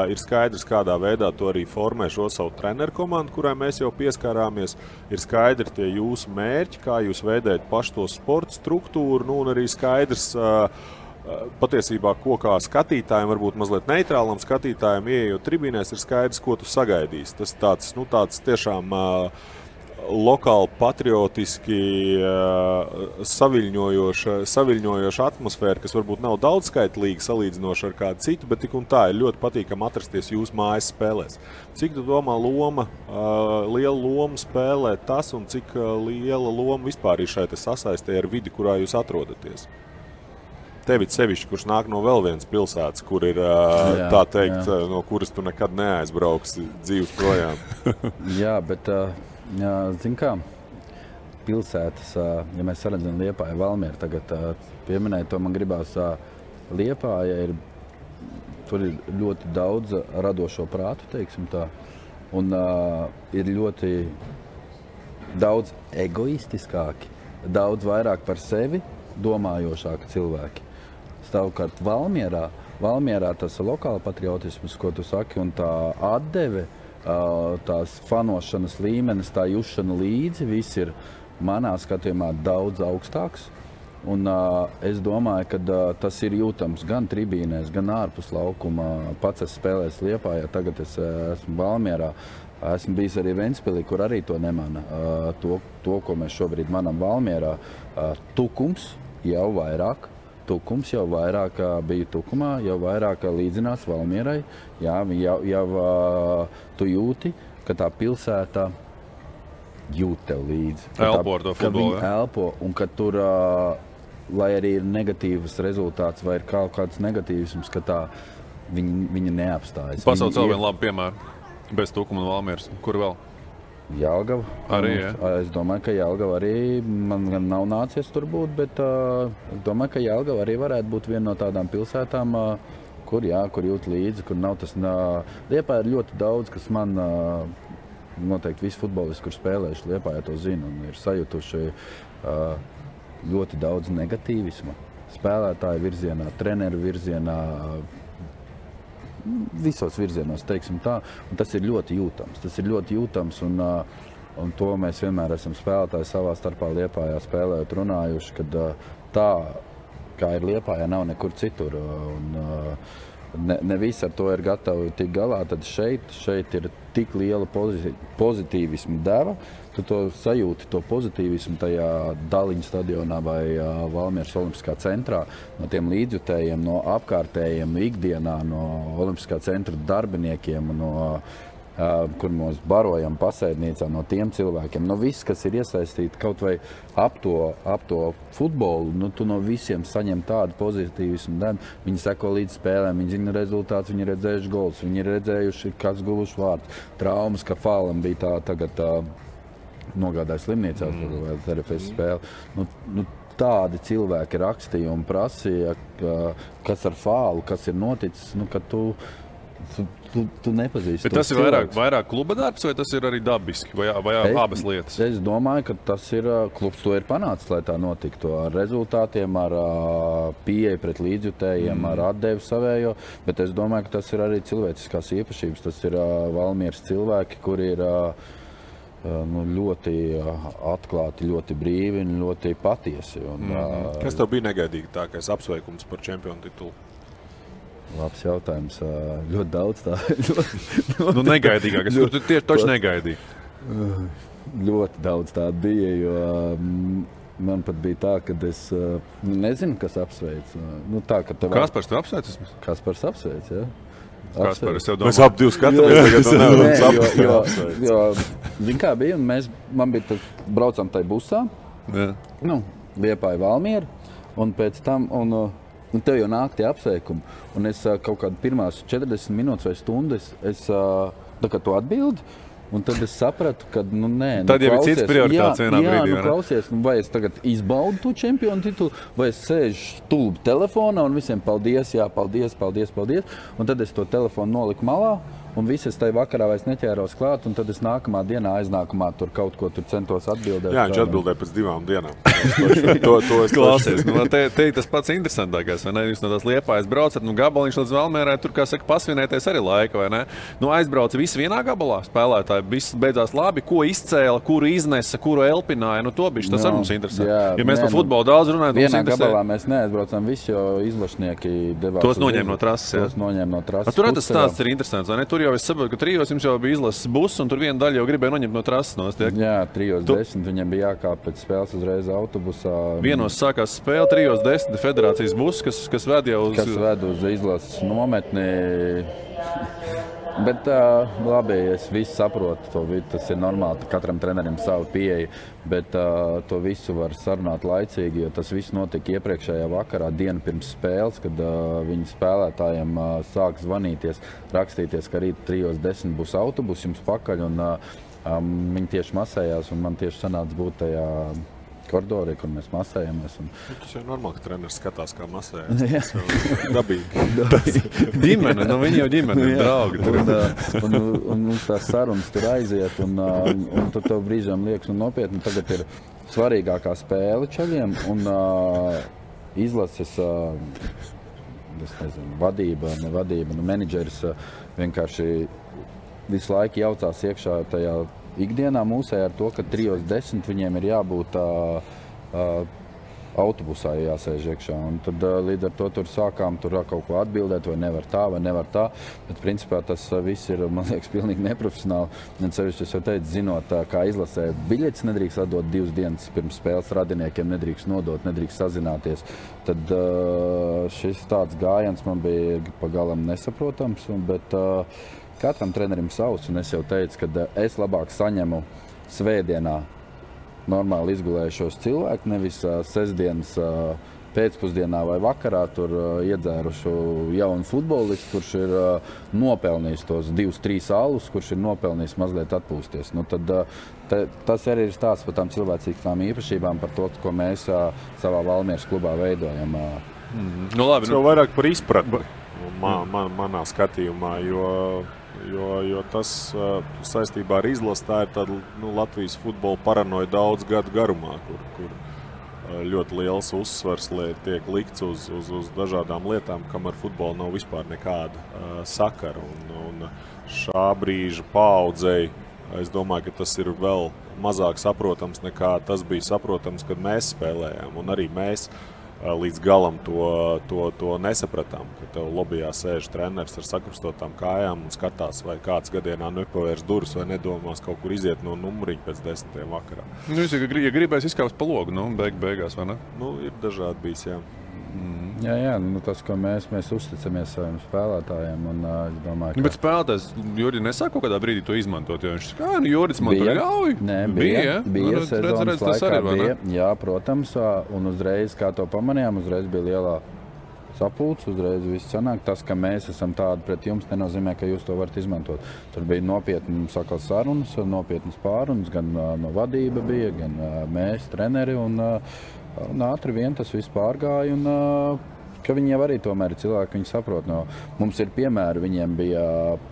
Ir skaidrs, kādā veidā to arī formē šo savu treneru komandu, kurai mēs jau pieskārāmies. Ir skaidri tie jūsu mērķi, kā jūs veidējat pašu to sporta struktūru, un arī skaidrs patiesībā, ko kā skatītājiem, varbūt mazliet neitrālam skatītājiem, ieejot tribīnēs, ir skaidrs, ko tu sagaidīsi. Tas tāds tiešām lokāli patriotiski saviļņojoša atmosfēra, kas varbūt nav daudzskaitlīga salīdzinoši ar kādu citu, bet tik un tā ir ļoti patīkami atrasties jūsu mājas spēlēs. Cik tu domā liela loma spēlē tas un cik liela loma vispār ir šai sasaistē ar vidi, kurā jūs atrodaties? Tevi sevišķi, kurš nāk no vēl vienas pilsētas, kur ir tā teikt, no kuras tu nekad neaizbrauksi dzīves projām. Jā, bet... Zin kā, pilsētas, ja mēs saredzam Liepāju, Valmieru tagad pieminēt, to man gribās Liepāja ir tur ir ļoti daudz radošo prātu, teiksim tā, un ir ļoti daudz egoistiskāki, daudz vairāk par sevi domājošāki cilvēki. Savukārt Valmierā tas lokāla patriotisms, ko tu saki, un tā atdeve, tās fanošanas līmenis, tā jušana līdzi, viss ir manā skatījumā daudz augstāks. Un es domāju, ka tas ir jūtams gan tribīnēs, gan ārpus laukuma. Pats es spēlēju Liepājā, tagad es esmu Valmierā. Esmu bijis arī Ventspilī, kur arī to nemana. To, ko mēs šobrīd manam Valmierā. Tukums jau vairāk bija Tukumā, jau vairāk līdzinās Valmierai. Jā, jau tu jūti, ka tā pilsēta jūt tev līdzi. Elpo ar to futbolu, ja? Elpo, un ka tur, lai arī ir negatīvs rezultāts vai ir kaut kāds negatīvisms, ka tā viņa neapstājas. Pasaules vēl vienu labu piemēru. Bez Tukuma un Valmieras. Kur vēl? Jelgava. Arī, jā. Es domāju, ka Jelgava arī, man gan nav nācies tur būt, bet es domāju, ka Jelgava arī varētu būt viena no tādām pilsētām, kur jūt līdzi, kur nav tas... Liepājā ir ļoti daudz, kas man... Noteikti visi futbolisti, kur spēlējuši Liepājā, to zina un ir sajutuši ļoti daudz negatīvisma. Spēlētāju virzienā, treneru virzienā, visos virzienos, teiksim tā. Un tas ir ļoti jūtams. Un to mēs vienmēr esam spēlētāji savā starpā Liepājā spēlējot runājuši, kad tā, kā ir Liepājā, nav nekur citur. Ne visi ar to ir gatavi tikt galā, tad šeit ir tik liela pozitīvisma deva, tu to sajūti, to pozitīvismu tajā Daliņu stadionā vai Valmieras Olimpiskā centrā, no tiem līdzjutējiem, no apkārtējiem ikdienā, no Olimpiskā centra darbiniekiem, kur mēs barojam pasēdnīcā, no tiem cilvēkiem, no viss, kas ir iesaistīti kaut vai ap to futbolu, tu no visiem saņem tādu pozitīvismu devu. Viņi seko līdz spēlēm, viņi zina rezultātus, viņi ir redzējuši gols, viņi ir redzējuši, kas guvuši vārds. Traumas, ka Fālam bija tagad nogādāja slimnīcā vai RFS spēli. Tādi cilvēki rakstīja un prasīja, kas ar Fālu, kas ir noticis, ka tu nepazīsti. Bet tas ir vairāk kluba darbs, vai tas ir arī dabiski, vai abas lietas? Es domāju, ka tas ir, klubs to ir panācis, lai tā notiktu ar rezultātiem, ar pieeju pret līdzjutējiem, ar atdevi savējo, bet es domāju, ka tas ir arī cilvēciskās īpašības. Tas ir Valmieras cilvēki, kuri ir ļoti atklāti, ļoti brīvi un ļoti patiesi. Kas tev bija negaidīgi tākais apsveikums par čempionu titulu? Labs jautājums. Ļoti daudz tā. Negaidīgākas, kur tu tieši toši negaidīji? Ļoti daudz tā bija, jo man pat bija tā, ka es nezinu, kas apsveic. Kaspars tev apsveic? Kaspars apsveic, jā. Kaspar, es jau domāju. Mēs ap divi skatāmies tagad. Jo, zin kā bija, un man bija braucam tai busā, Liepāja Valmiera, un pēc tam, un tev jau nāk tie apsveikumi. Un es kaut kādu pirmās 40 minūtes vai stundas, tā kā tu atbildi, un tad es sapratu, ka, nē. Tad jau ir cits prioritāts vienā brīdī. Jā, klausies, vai es tagad izbaudu to čempionu titulu, vai es sēžu stulbi telefonā un visiem paldies, jā, paldies. Un tad es to telefonu noliku malā. Un visi es tajā vakarā vairs neķēros klāt, un tad es nākamā dienā aiznākumā tur kaut ko tur centos atbildēt. Jā, viņš atbildēja pēc 2 dienām. To es klausies. Te tas pats interesantākais, vai ne? Jūs no tās Liepājas braucat, gabaliņš līdz Valmierai, tur, kā saka, pasvinēties arī laika, vai ne? Aizbrauca visi vienā gabalā spēlētāji, viss beidzās labi, ko izcēla, kuru iznesa, kuru elpināja, to bišķi, tas arī mums interesē. Ja mēs par futbolu daudz runājam, mums interesē. Vienā gabalā mēs neaizbraucam visi, jo izlašnieki devās. Tos noņēma no trases, Tur tas stāsts ir interesants, vai ne? Tur jau es saprotu, ka trijos jums jau bija izlases buss, un tur viena daļa jau gribēja noņemt no trases nost. Jā, 3:10 viņam bija jākāp pēc spēles uzreiz autobusā. Vienos sākās spēle, 3:10 federācijas buss, kas ved jau uz... Kas ved uz izlases nometni. Bet labi, es visu saprotu, tas ir normāli, katram trenerim savu pieeju, bet to visu var sarunāt laicīgi, jo tas viss notika iepriekšējā vakarā, dienu pirms spēles, kad viņi spēlētājiem sāk zvanīties, rakstīties, ka rīt 3:10 būs autobus jums pakaļ, un viņi tieši masējās, un man tieši sanāca būt tajā koridorī, kur mēs masējamies. Tas jau normāli, ka treneris skatās, kā masējas. Dabīgi. Ģimene, viņi jau ģimene, draugi. Un mums tās sarunas tur aiziet, un tad tev brīžām liekas, nopietni, tagad ir svarīgākā spēle čaļiem, un izlases, es nezinu, vadība, menedžeris vienkārši visu laiku jaucās iekšā tajā ikdienā mūsē ar to, ka 3:10 viņiem ir jābūt autobusā jāsēž iekšā. Un tad līdz ar to tur sākām kaut ko atbildēt, vai nevar tā. Bet principā tas viss ir, man liekas, pilnīgi neprofesionāli. Un sevišķi es jau teicu, zinot, kā izlasē biļetes nedrīkst atdot 2 dienas pirms spēles radiniekiem, nedrīkst nodot, nedrīkst sazināties. Tad šis tāds gājiens man bija pagalam nesaprotams, bet katram trenerim savs, un es jau teicu, ka es labāk saņemu svētdienā normāli izgulējušos cilvēku, nevis sestdienas pēcpusdienā vai vakarā tur iedzērušu jaunu futbolistu, kurš ir nopelnījis tos 2-3 alus, kurš ir nopelnījis mazliet atpūsties. Nu, tad, tas arī ir stāsts par tām cilvēcīgām īpašībām, par to, ko mēs savā Valmieras klubā veidojam. Nu, labi, tas jau vairāk par izpratni manā skatījumā, jo tas saistībā ar izlasi tā ir tāda Latvijas futbola paranoja daudz gadu garumā, kur ļoti liels uzsvars tiek likts uz dažādām lietām, kam ar futbolu nav vispār nekāda sakara. Un šā brīža paaudzei, es domāju, ka tas ir vēl mazāk saprotams nekā tas bija saprotams, kad mēs spēlējām. Un arī mēs līdz galam to nesapratām, ka tev lobijā sēž treneris ar sakrustotām kājām un skatās, vai kāds gadienā nepavērs durvis vai nedomās kaut kur iziet no numuriņa pēc 10. vakarā. Nu, ja gribēs izkāpt pa logu, beigās, vai ne? Nu, ir dažādi bijis, jā. Jā, tas, ko mēs uzticamies saviem spēlētājiem, un es domāju, ka... Bet spēlētājs Jurģi nesāk kaut kādā brīdī to izmantot, jo viņš saka, Jurģis man tur ļauj? Nē, bija sezonas laikā, bija, jā, protams, un uzreiz, kā to pamanījām, uzreiz bija lielā sapulce, uzreiz viss sanāk. Tas, ka mēs esam tādi pret jums, nenozīmē, ka jūs to varat izmantot. Tur bija nopietni sarunas, nopietnas pārunas, gan no vadība bija, gan mēs, treneri, un ātri vien tas viss pārgāja, un ka viņi jau arī tomēr ir cilvēki, viņi saprot. No, mums ir piemēri, viņiem bija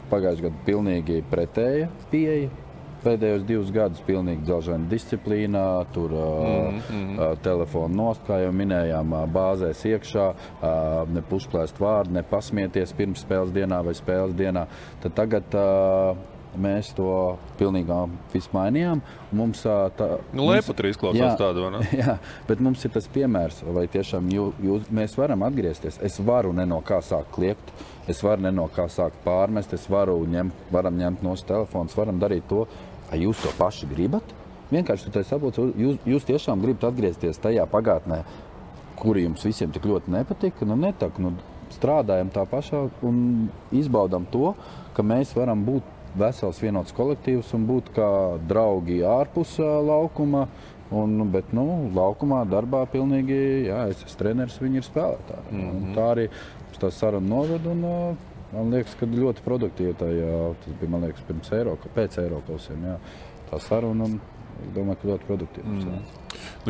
pagājušajā gadā pilnīgi pretēja pieeja. Pēdējos 2 gadus pilnīgi dzelžaina disciplīnā, tur telefonu nost, kā jau minējām, bāzēs iekšā, ne pušplēst vārdu, ne pasmieties pirms spēles dienā vai spēles dienā. Tad tagad mēs to pilnīgi visu mainījām. Mums Leiputri izklausās tādu, vai ne? Jā, bet mums ir tas piemērs, vai tiešām mēs varam atgriezties. Es varu ne no kā sākt kliegt, es varu ne no kā sākt pārmest, varam ņemt no telefons, varam darīt to. Jūs to paši gribat? Vienkārši tu saproti, jūs tiešām gribat atgriezties tajā pagātnē, kuri jums visiem tik ļoti nepatika, strādājam tā pašā un izbaudam to, ka mēs varam būt vesels vienots kolektīvs un būt kā draugi ārpus laukuma, bet laukumā, darbā pilnīgi, jā, es esmu treneris, viņi ir spēlētāji. Tā arī tā saruna noved, un man liekas, ka ļoti produktīvi tas bija, man liekas, pēc Eirokausiem, jā, tā saruna, un es domāju, ka ļoti produktīvi.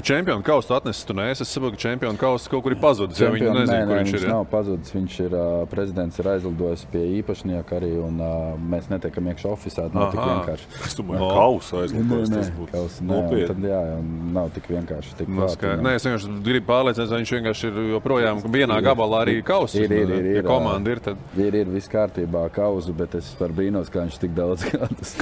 Čempionu kausu atnesis tu neesi. Es saprotu, ka čempionu kausu kaut kur ir pazudis. Viņi nezinu, kur viņš ir. Nav pazudis. Viņš ir, prezidents ir aizlidojis pie īpašnieka arī, un mēs netiekam iekšā ofisā. Nav tik vienkārši. Es domāju, kausu aizlidojis. Tas būtu nopietni. Tad jā, nav tik vienkārši. Tik Nē, es vienkārši gribu pārliecināties, vai viņš vienkārši ir joprojām vienā gabalā arī kausu. Ir. Komanda ir tad. Ir viss kārtībā kausu, bet es par brīnos, kā viņš tik daudz gadus.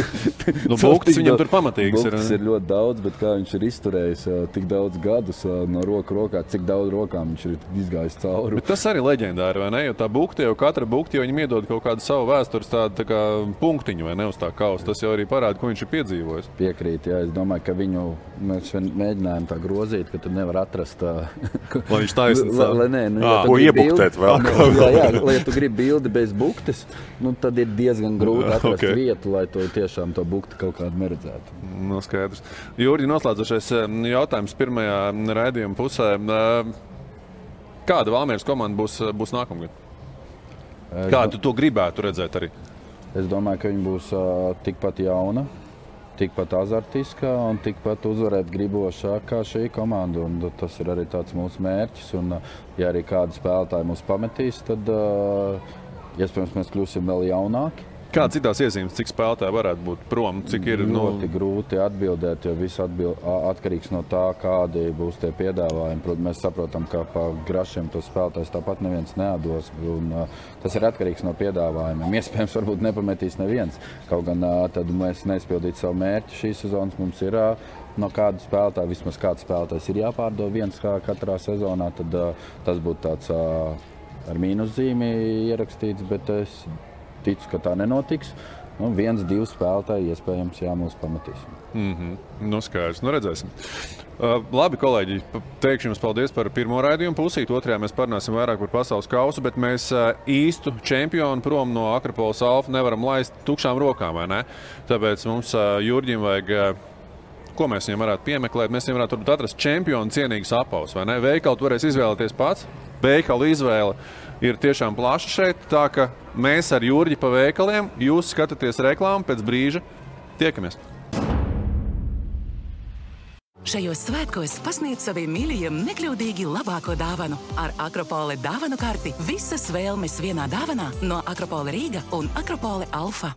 Buktis viņam tur pamatīgs ir. Buktis ir ļoti daudz, bet kā viņš ir izturējis tik daudz gadus no rokā, cik daudz rokām viņš ir izgājis cauri. Bet tas arī leģendāri, vai ne? Jo tā bukti, jau katra bukti, jo viņam iedod kaut kādu savu vēstures tādu tā kā punktiņu, vai ne, uz tā kausa. Tas jau arī parāda, ko viņš ir piedzīvojis. Piekrīt, jā. Es domāju, ka viņu mēs mēģinājām tā grozīt, ka tu nevar atrast lai viņš taisnīgs. Ko iebuktēt vēl? Jā, lai tu gribi bildi bez buktes, tad ir diezgan grūti atrast vietu, lai to tiešām to bukti kaut kādu neredzētu. Skaidrs. Jurģi, noslēdzošais jautājums pirmajā raidījuma pusē. Kāda Valmieras komanda būs nākamgad? Kādu tu to gribētu redzēt arī? Es domāju, ka viņa būs tikpat jauna, tikpat azartiskā un tikpat uzvarēt gribošā kā šī komanda. Un tas ir arī tāds mūsu mērķis. Un, ja arī kādi spēlētāji mūs pametīs, tad iespējams mēs kļūsim vēl jaunāki. Kāds ir tās iezīmes, cik spēlētāji varētu būt prom? Cik ir ļoti grūti atbildēt, jo viss atkarīgs no tā, kādi būs tie piedāvājumi. Protams, mēs saprotam, ka pa grašiem tos spēlētājs tāpat neviens neatdos. Un, tas ir atkarīgs no piedāvājumiem. Iespējams, varbūt nepametīs neviens. Kaut gan tad mēs neizpildītu savu mērķi šīs sezonas. Mums ir no kāda spēlētāja, vismaz kāds spēlētājs ir jāpārdod viens katrā sezonā. Tad tas būtu tāds ar mīnuszīmi ierakstīts, bet es ticu, ka tā nenotiks. Viens, divi spēlētāji iespējams mūs pametīs. Skaidrs. Redzēsim. Labi, kolēģi, teikšu jums paldies par pirmo raidījumu pusīt. Otrajā mēs parunāsim vairāk par pasaules kausu, bet mēs īstu čempionu prom no Akropoles Alfa nevaram laist tukšām rokām, vai ne? Tāpēc mums Jurģim vajag, ko mēs viņam varētu piemeklēt? Mēs viņam varētu atrast čempionu cienīgus apavus, vai ne? Veikalu tu varēsi izvēlēties pats. Veikalu izvēle ir tiešām plaša šeit, tā ka mēs ar Jurģi pa veikaliem, jūs skatāties reklāmu, pēc brīža tiekamies. Šajos svētkos pasniedz saviem mīļajiem nekļūdīgi labāko dāvanu. Ar Akropole dāvanu karti visas vēlmes vienā dāvanā no Akropole Rīga un Akropole Alfa.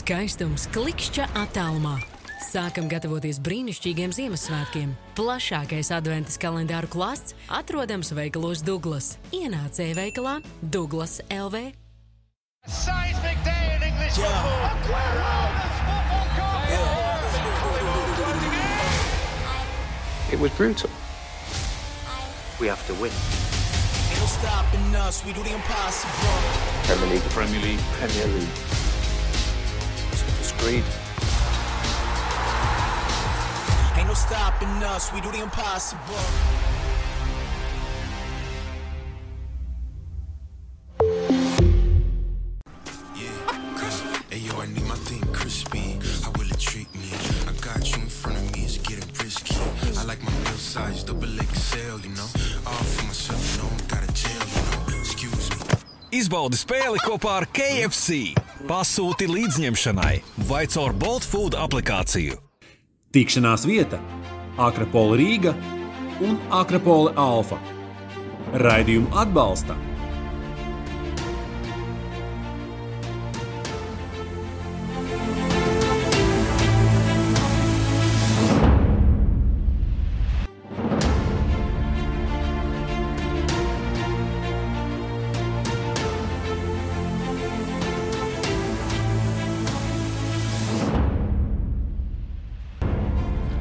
Skaistums klikšķa attālumā. Sākam gatavoties brīnišķīgiem Ziemassvētkiem. Plašākais adventas kalendāru klāsts atrodams veikalos Douglas. Ienāc e-veikalā Douglas LV. Seismic day in English football. Aguero! It was brutal. We have to win. Ain't no stopping us, we do the impossible. Premier League. Premier League. Premier League. It's great. Ain't no stopping us, we do the impossible. Hey yo, I need my thing crispy. How will it treat me? I got you in front of me, it's getting risky. I like my meal size, double XL, you know. All for myself, you know, got a jail, you know. Excuse me. Izbaudi spēli kopā ar KFC. Pasūti līdzņemšanai vai caur Bolt Food aplikāciju. Tikšanās vieta Akropole Rīga un Akropole Alfa. Raidījumu atbalsta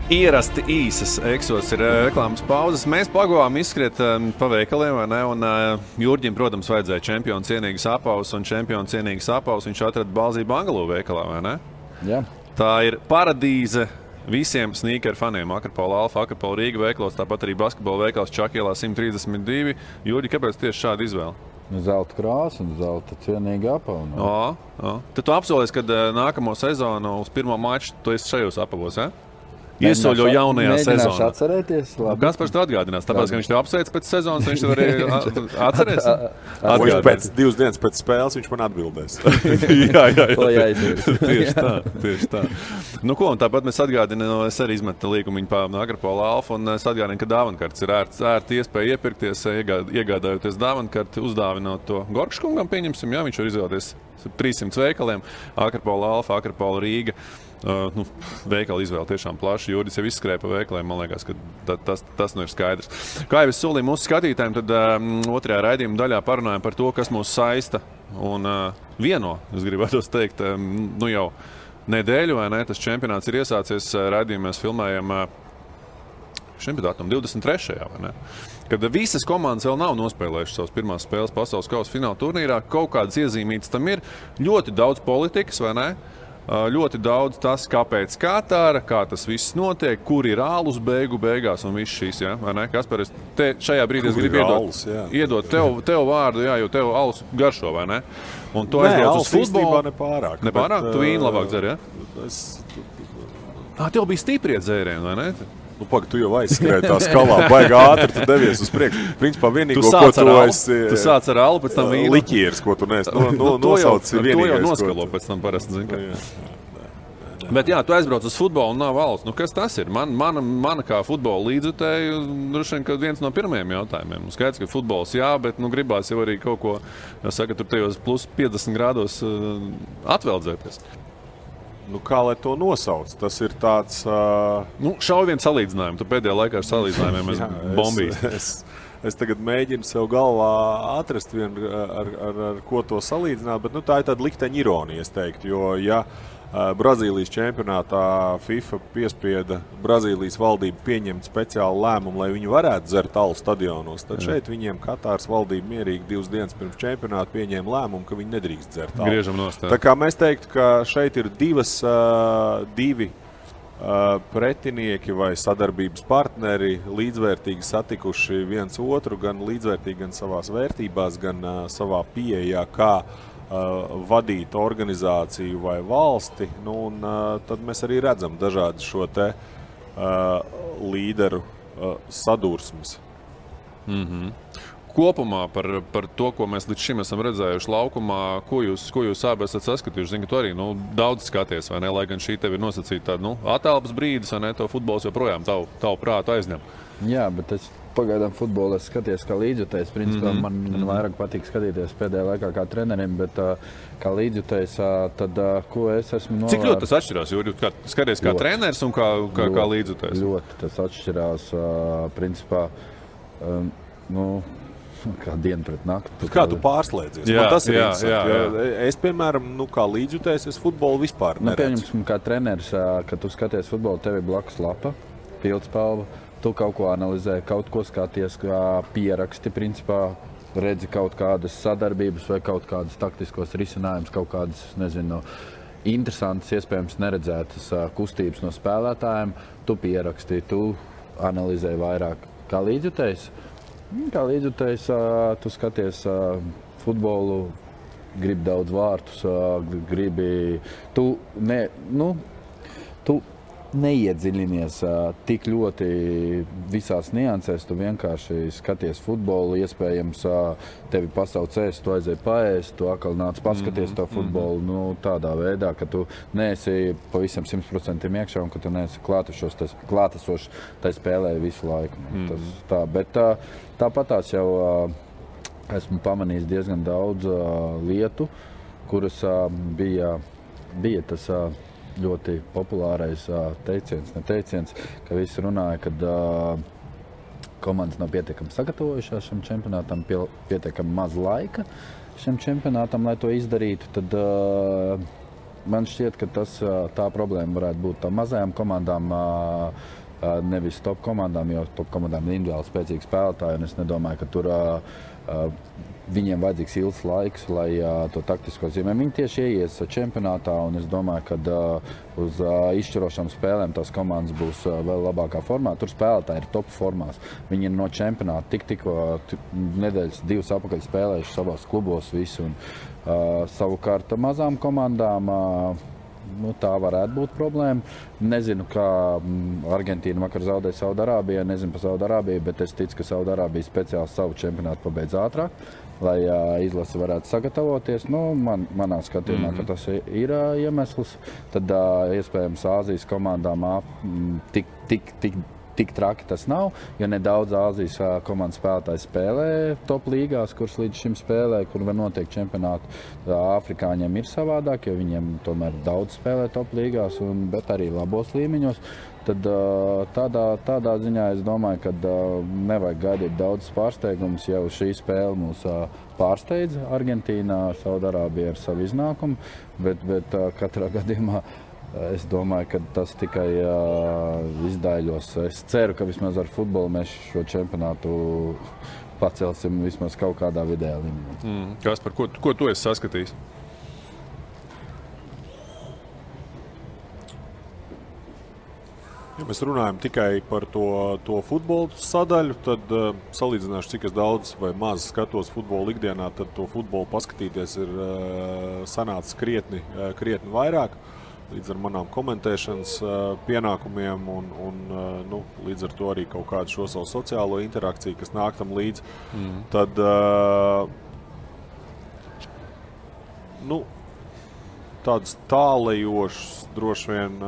Ierasti īsas eksos ir reklāmas pauzes. Mēs pagavām izskriet pa veikaliem, vai ne? Un Jurģim, protams, vajadzēja čempionu cienīgas apavus, un čempionu cienīgas apavus viņš atrada Balzību Bangalū veikalā, vai ne? Jā. Tā ir paradīze visiem sneakeru faniem. Akropole Alfa, Akropole Rīga veikalos, tāpat arī basketbola veikals Čakielā 132. Jurģi, kāpēc tieši šāda izvēle? Zelta krāsa un zelta cienīga apava. Tad tu apsolies, ka nākamo sezonu uz pirmo maču tu esi šajos apavos, ja? Iesoļo jaunajā sezonā. Mēģināšu atcerēties. Kaspars to atgādinās, tāpēc, ka viņš tev apsveic pēc sezonas, viņš tev arī atcerēs. Pēc 2 dienas pēc spēles viņš man atbildēs. jā. Tieši tā. Nu ko, un tāpat mēs atgādinām, es arī izmetu līgumiņu pa Akropole Alfa, un es atgādinu, ka dāvankartes ir ērti iespēja iepirkties, iegādājoties dāvankarti, uzdāvinot to Gorkškungam, pieņemsim, jā, viņš var izvēlēties 300 veikaliem, Akropole Alfa, Akropole Rīga. Veikala izvēle tiešām plaša. Jurģis jau izskrēja pa veikaliem, man liekas, ka tas nu ir skaidrs. Kā jau es solīju mūsu skatītājiem, tad otrajā raidījuma daļā parunājam par to, kas mūs saista un vieno, es gribētu teikt, jau nedēļu, vai ne? Tas čempionāts ir iesācies, raidījumā mēs filmējam šim datumam 23. vai ne? Kad visas komandas vēl nav nospēlējušas savas pirmās spēles pasaules kausa fināla turnīrā, kaut kādas iezīmītas tam ir, ļoti daudz politikas, vai ne? Ļoti daudz tas, kāpēc Katāra, kā tas viss notiek, kur ir ālus beigās un viss šīs, ja? Vai ne? Kaspar, šajā brīdī es gribu iedot tev vārdu, jā, jo tev alus garšo, vai ne? Un tu aizbrauc uz futbolu. Nepārāk. Nepārāk? Tu vīnu labāk dzer, ja? Tev bija stiprie dzērieni, vai ne? Nu, tu jau aizskrēji tā skalā, baigi ātri, tu devies uz priekšu. Principā vienīgo, ko tu esi... Tu sāc ar alu, pēc tam vīnu. Liķieris, ko tu neesi nosauc vienīgais. To jau noskalo pēc tam parasti, zin, ka. Bet jā, tu aizbrauc uz futbolu un nav alus. Nu, kas tas ir? Mana kā futbola līdzjutēja, droši vien, ka viens no pirmajiem jautājumiem. Skaidrs, ka futbols jā, bet gribās jau arī kaut ko, jāsaka, tur tajos plus 50 grādos atveldzēties. Nu, kā lai to nosauc? Tas ir tāds... Šauj viens salīdzinājumu. Tu pēdējā laikā ar salīdzinājumiem esi bombījis. Es tagad mēģinu sev galvā atrast vienu, ar ko to salīdzināt, bet tā ir tāda likteņa ironija, es teiktu. Jo, ja Brazīlijas čempionātā FIFA piespieda Brazīlijas valdību pieņemt speciālu lēmumu, lai viņi varētu dzert alu stadionos, tad šeit viņiem Katāras valdība mierīgi 2 dienas pirms čempionāta pieņēma lēmumu, ka viņi nedrīkst dzert alu. Griežam nost. Tā kā mēs teiktu, ka šeit ir divi pretinieki vai sadarbības partneri līdzvērtīgi satikuši viens otru, gan līdzvērtīgi, gan savās vērtībās, gan savā pieejā, kā vadīt organizāciju vai valsti, un tad mēs arī redzam dažādi šo te līderu sadursmes. Kopumā par to, ko mēs līdz šim esam redzējuši laukumā, ko jūs abi esat saskatījuši? Zinu, ka tu arī daudz skaties, vai ne? Lai gan šī tev ir nosacīta atelpas brīdis, vai ne? To futbols joprojām tavu prātu aizņem. Jā, bet es pagaidām futbolu skaties kā līdzjutējs. Principā man vairāk patīk skatīties pēdējā laikā kā trenerim, bet kā līdzjutējs, tad ko es esmu novērts. Cik ļoti tas atšķirās? Jo skaties kā treneris un kā līdzjutējs? Ļoti tas atšķirās, principā, kā diena pret nakti. Kā tu pārslēdzies? Man tas ir interesanti. Es, piemēram, kā līdzjutējs, es futbolu vispār neredzu. Pieņemsim, kā treneris, kad tu skaties futbolu, tev ir blakus lapa, pildspalva. Tu kaut ko analizē, kaut ko skaties, kā pieraksti, principā redzi kaut kādas sadarbības vai kaut kādas taktiskos risinājumus, kaut kādas, interesantas, iespējams neredzētas kustības no spēlētājiem. Tu pieraksti, tu analizē vairāk. Kā līdzjutējs? Kā līdzjutējs, tu skaties futbolu, gribi daudz vārtus, tu neiedziļinies tik ļoti visās niansēs, tu vienkārši skaties futbolu, iespējams tevi pasauc ēst, tu aizēji paēst, tu atkal nāc paskaties to futbolu, tādā veidā, ka tu neesi pavisam 100% iekšā un ka tu neesi klātesošs tai spēlē visu laiku. Bet tāpatās jau esmu pamanījis diezgan daudz lietu, kuras bija tas ļoti populārais teiciens, ka visi runāja, kad komandas nav pietiekami sagatavojušās šim čempionātam, pietiekami maz laika šim čempionātam, lai to izdarītu, tad man šķiet, ka tā problēma varētu būt tā mazajām komandām, nevis top komandām, jo top komandām ir individuāli spēcīgi spēlētāji, un es nedomāju, ka tur viņiem vajadzīgs ilgs laiks, lai to taktisko zīmē. Viņi tieši ieies čempionātā, un es domāju, ka uz izšķirošām spēlēm tās komandas būs vēl labākā formā. Tur spēlētāji ir top formās. Viņi ir no čempionāta tikko nedēļas 2 apakaļ spēlējuši savās klubos visu. Savukārt mazām komandām tā varētu būt problēma. Nezinu, kā Argentīna vakar zaudēja Saudarābijai, nezinu par Saudarābiju, bet es ticu, ka Saudarābija speciāli savu čempionātu pabeidz ātrāk, lai izlase varētu sagatavoties. Manā skatījumā, ka tas ir iemesls. Tad iespējams Āzijas komandām tik traki tas nav, jo nedaudz Āzijas komandas spēlētāji spēlē top līgās, kuras līdz šim spēlē, kur var notiek čempionāti. Afrikāņiem ir savādāk, jo viņiem tomēr daudz spēlē top līgās, bet arī labos līmeņos. Tad tādā ziņā es domāju, ka nevajag gaidīt daudz pārsteigumus, jau šī spēle mūs pārsteidz Argentīnā, Saudarābija ar savu iznākumu, bet katrā gadījumā es domāju, ka tas tikai izdaiļos. Es ceru, ka vismaz ar futbolu mēs šo čempionātu pacelsim vismaz kaut kādā vidējā līmenī. Kaspar, ko tu esi saskatījis? mēs runājam tikai par to futbolu sadaļu, tad salīdzināšu, cik es daudz vai maz skatos futbolu ikdienā, tad to futbolu paskatīties ir sanācis krietni vairāk. Līdz ar manām komentēšanas pienākumiem un līdz ar to arī kaut kādu šo savu sociālo interakciju, kas nāk tam līdz. Tad, tādus tālējošus droši vien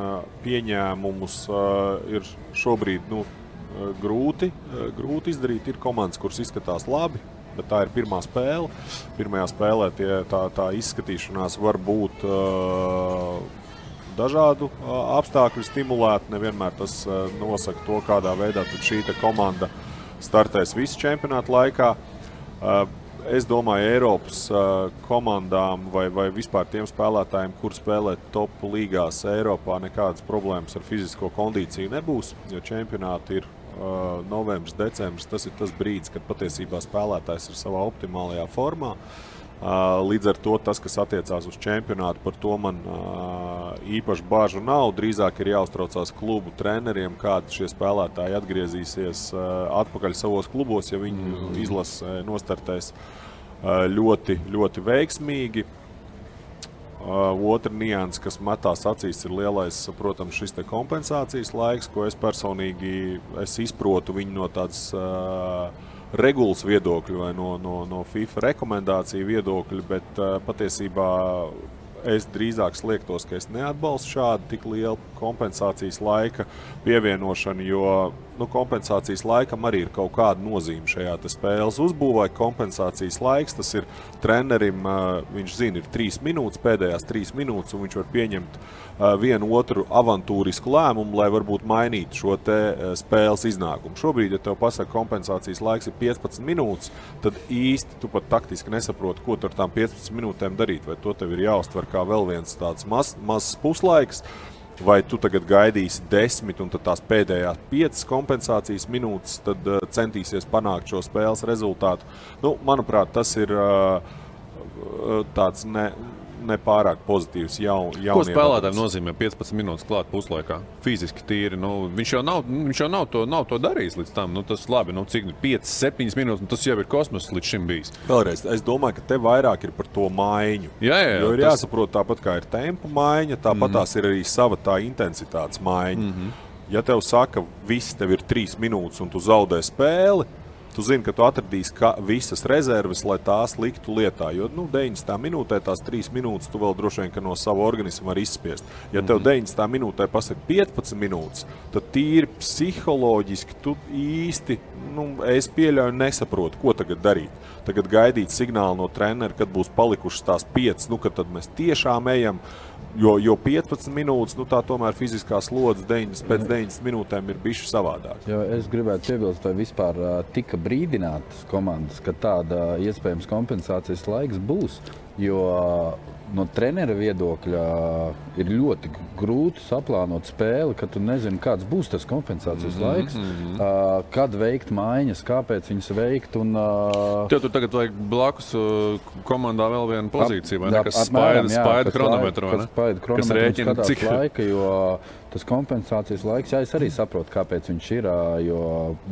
pieņēmumus ir šobrīd grūti izdarīt. Ir komandas, kuras izskatās labi, bet tā ir pirmā spēle. Pirmajā spēlē tā izskatīšanās var būt dažādu apstākļu stimulēti. Nevienmēr tas nosaka to, kādā veidā tad šī komanda startēs visu čempionātu laikā. Es domāju, Eiropas komandām vai vispār tiem spēlētājiem, kur spēlē top līgās Eiropā, nekādas problēmas ar fizisko kondīciju nebūs, jo čempionāti ir novembris, decembris. Tas ir tas brīdis, kad patiesībā spēlētājs ir savā optimālajā formā. Līdz ar to tas, kas attiecās uz čempionātu, par to man īpaši bāžu nav. Drīzāk ir jāuztraucās klubu treneriem, kādi šie spēlētāji atgriezīsies atpakaļ savos klubos, ja viņi izlase nostartēs ļoti, ļoti veiksmīgi. Otra nianse, kas metās acīs, ir lielais, protams, šis kompensācijas laiks, ko es personīgi izprotu viņu no tādas regulas viedokļu vai no FIFA rekomendāciju viedokļu, bet patiesībā es drīzāk sliektos, ka es neatbalstu šādu tik lielu kompensācijas laika pievienošanu, jo kompensācijas laikam arī ir kaut kāda nozīme šajā spēles uzbūvē. Kompensācijas laiks, tas ir trenerim, viņš zina, ir 3 minūtes, pēdējās 3 minūtes, un viņš var pieņemt vienu otru avantūrisku lēmumu, lai varbūt mainītu šo spēles iznākumu. Šobrīd, ja tev pasaka, kompensācijas laiks ir 15 minūtes, tad īsti tu pat taktiski nesaproti, ko tu ar tām 15 minūtēm darīt. Vai to tev ir jāuztver kā vēl viens tāds mazs puslaiks, vai tu tagad gaidīsi 10 un tad tās pēdējās 5 kompensācijas minūtes, tad centīsies panākt šo spēles rezultātu. Manuprāt, tas ir tāds nepārāk pozitīvs jaunie. Ko spēlētājiem nozīmē 15 minūtes klāt puslaikā? Fiziski tīri. Viņš jau nav to darījis līdz tam. Tas labi, cik 5-7 minūtes, tas jau ir kosmos līdz šim bijis. Vēlreiz, es domāju, ka te vairāk ir par to maiņu. Jā, jo ir jāsaprot, tāpat kā ir tempa maiņa, tāpat tās ir arī sava tā intensitātes maiņa. Ja tev saka, viss tev ir 3 minūtes un tu zaudē spēli, tu zini, ka tu atradīsi visas rezerves, lai tās liktu lietā. Jo 90. minūtē tās 3 minūtes tu vēl droši vien, ka no sava organisma var izspiest. Ja tev 90. minūtē pasaka 15 minūtes, tad tīri psiholoģiski tu īsti, es pieļauju, nesaprotu, ko tagad darīt. Tagad gaidīt signālu no trenera, kad būs palikušas tās 5, kad tad mēs tiešām ejam. Jo 15 minūtes, tā tomēr fiziskā slodze pēc 90 minūtēm ir bišķi savādāk. Jo es gribētu piebilst, vai vispār tika brīdinātas komandas, ka tāda iespējams kompensācijas laiks būs, jo no trenera viedokļa ir ļoti grūti saplānot spēli, ka tu nezini, kāds būs tas kompensācijas laiks, kad veikt maiņas, kāpēc viņas veikt. Tev tur tagad vajag blakus komandā vēl vienu pozīciju, vai ne? Kas spaida chronometru, vai ne? Kas rēķina cik laika, jo tas kompensācijas laiks, es arī saprotu, kāpēc viņš ir, jo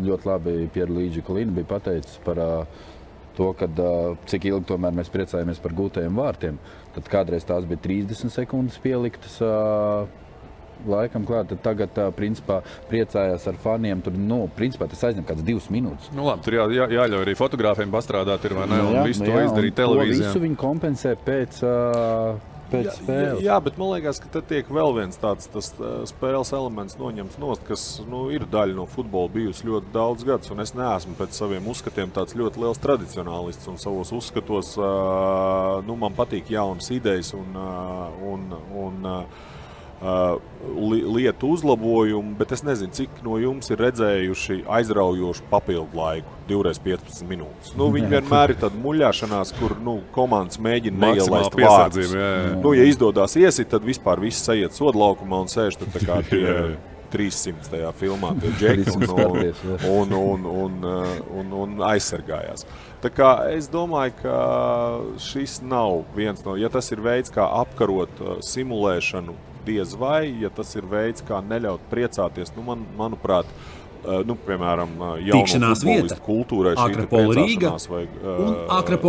ļoti labi Pierluigi Collina bija pateicis par to, kad cik ilgi tomēr mēs priecājamies par gūtajiem vārtiem. Tad kādreiz tās bija 30 sekundes pieliktas laikam klāt, tad tagad principā priecājās ar faniem. Tur, principā tas aizņem kāds 2 minūtes. Labi, tur jāļauj arī fotogrāfiem pastrādāt, ir vai ne? Un visu to izdarīt televīzijā. To visu viņi kompensē pēc spēles. Jā, bet man liekas, ka tad tiek vēl viens tāds spēles elements noņemts nost, kas ir daļa no futbola bijusi ļoti daudz gadus, un es neesmu pēc saviem uzskatiem tāds ļoti liels tradicionālists, un savos uzskatos man patīk jaunas idejas un lietu uzlabojumu, bet es nezinu, cik no jums ir redzējuši aizraujošu papildu laiku, 2x15 minūtes. Viņi vienmēr ir tāda muļāšanās, kur komandas mēģina neielaist vārdus. Ja izdodās iesit, tad vispār viss aiziet sodlaukumā un sēž tad tā kā tie 300. filmā tie džeki un aizsargājās. Tā kā es domāju, ka šis nav viens no, ja tas ir veids, kā apkarot simulēšanu diez vai, ja tas ir veids, kā neļaut priecāties, manuprāt, piemēram, jauno futbolistu kultūrai šī priecāšanās vai vārdu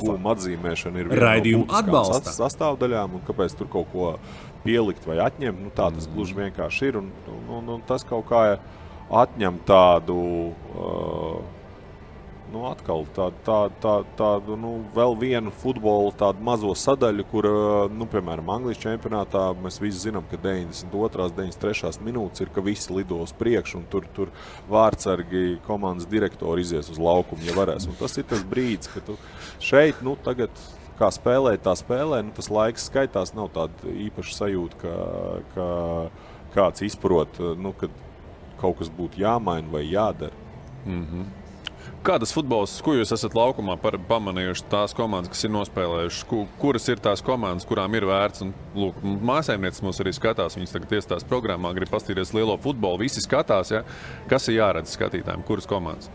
gūma atzīmēšana ir viena no būtiskām sastāvdaļām, un kāpēc tur kaut ko pielikt vai atņemt, tā tas gluži vienkārši ir, un tas kaut kā atņem tādu, atkal tādu, vēl vienu futbolu tādu mazo sadaļu, kur, piemēram, Anglijas čempionātā mēs visi zinām, ka 92. 93. minūtes ir, ka visi lido uz priekšu, un tur vārdsargi komandas direktori izies uz laukumu, ja varēs. Un tas ir tas brīdis, ka tu šeit, tagad, kā spēlē, tā spēlē, tas laiks skaitās, nav tāda īpaša sajūta, ka kāds izprot, kad kaut kas būtu jāmaina vai jādara. Mm-hmm. Kādas futbols, ko jūs esat laukumā pamanījuši tās komandas, kas ir nospēlējušas? Kuras ir tās komandas, kurām ir vērts? Un, lūk, māsēmnieces mūs arī skatās, viņas tagad iestās programmā, grib pastīties lielo futbolu, visi skatās, ja? Kas ir jāredz skatītājiem, kuras komandas?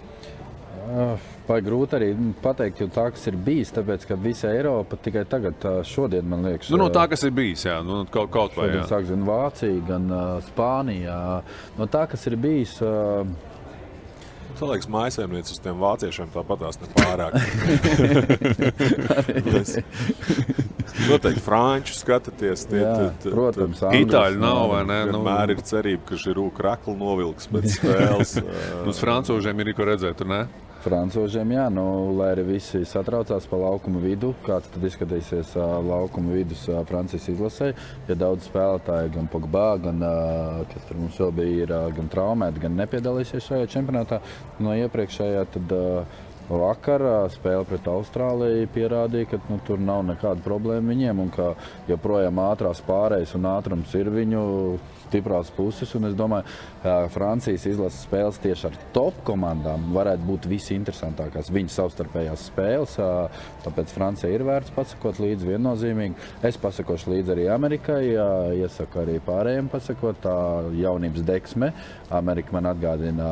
Vai grūti arī pateikt, jo tā, kas ir bijis, tāpēc, ka visa Eiropa tikai tagad, šodien, man liekas... No tā, kas ir bijis, jā, kaut vai, jā. Sāk, gan Vācija, gan Spānija. No tā, kas ir bijis... Tā liekas, mājasēmniec uz tiem vāciešiem tāpatās nepārāk. Noteikti franču skatāties. Protams, Itāļu nav, vai ne? Vienmēr ir cerība, ka Žirū kraklu novilks pēc spēles. Uz francūžiem ir ko redzēt, tur ne? Francūžiem, jā, lai arī visi satraucās pa laukuma vidu, kāds tad izskatīsies laukuma vidus Francijas izlasē. Ja daudz spēlētāji, gan Pogba, gan, kas tur mums vēl bija, ir gan traumēti, gan nepiedalīsies šajā čempionātā. No iepriekšējā tad vakar spēle pret Austrāliju pierādīja, ka tur nav nekāda problēma viņiem un ka joprojām ātrās pārējas un ātrums ir viņu stiprās puses, un es domāju, Francijas izlases spēles tieši ar top komandām varētu būt visinteresantākās viņu savstarpējās spēles, tāpēc Francija ir vērts pasakot līdzi viennozīmīgi. Es pasakošu līdzi arī Amerikai, iesaku arī pārējiem pasakot, tā jaunības deksme. Amerika man atgādina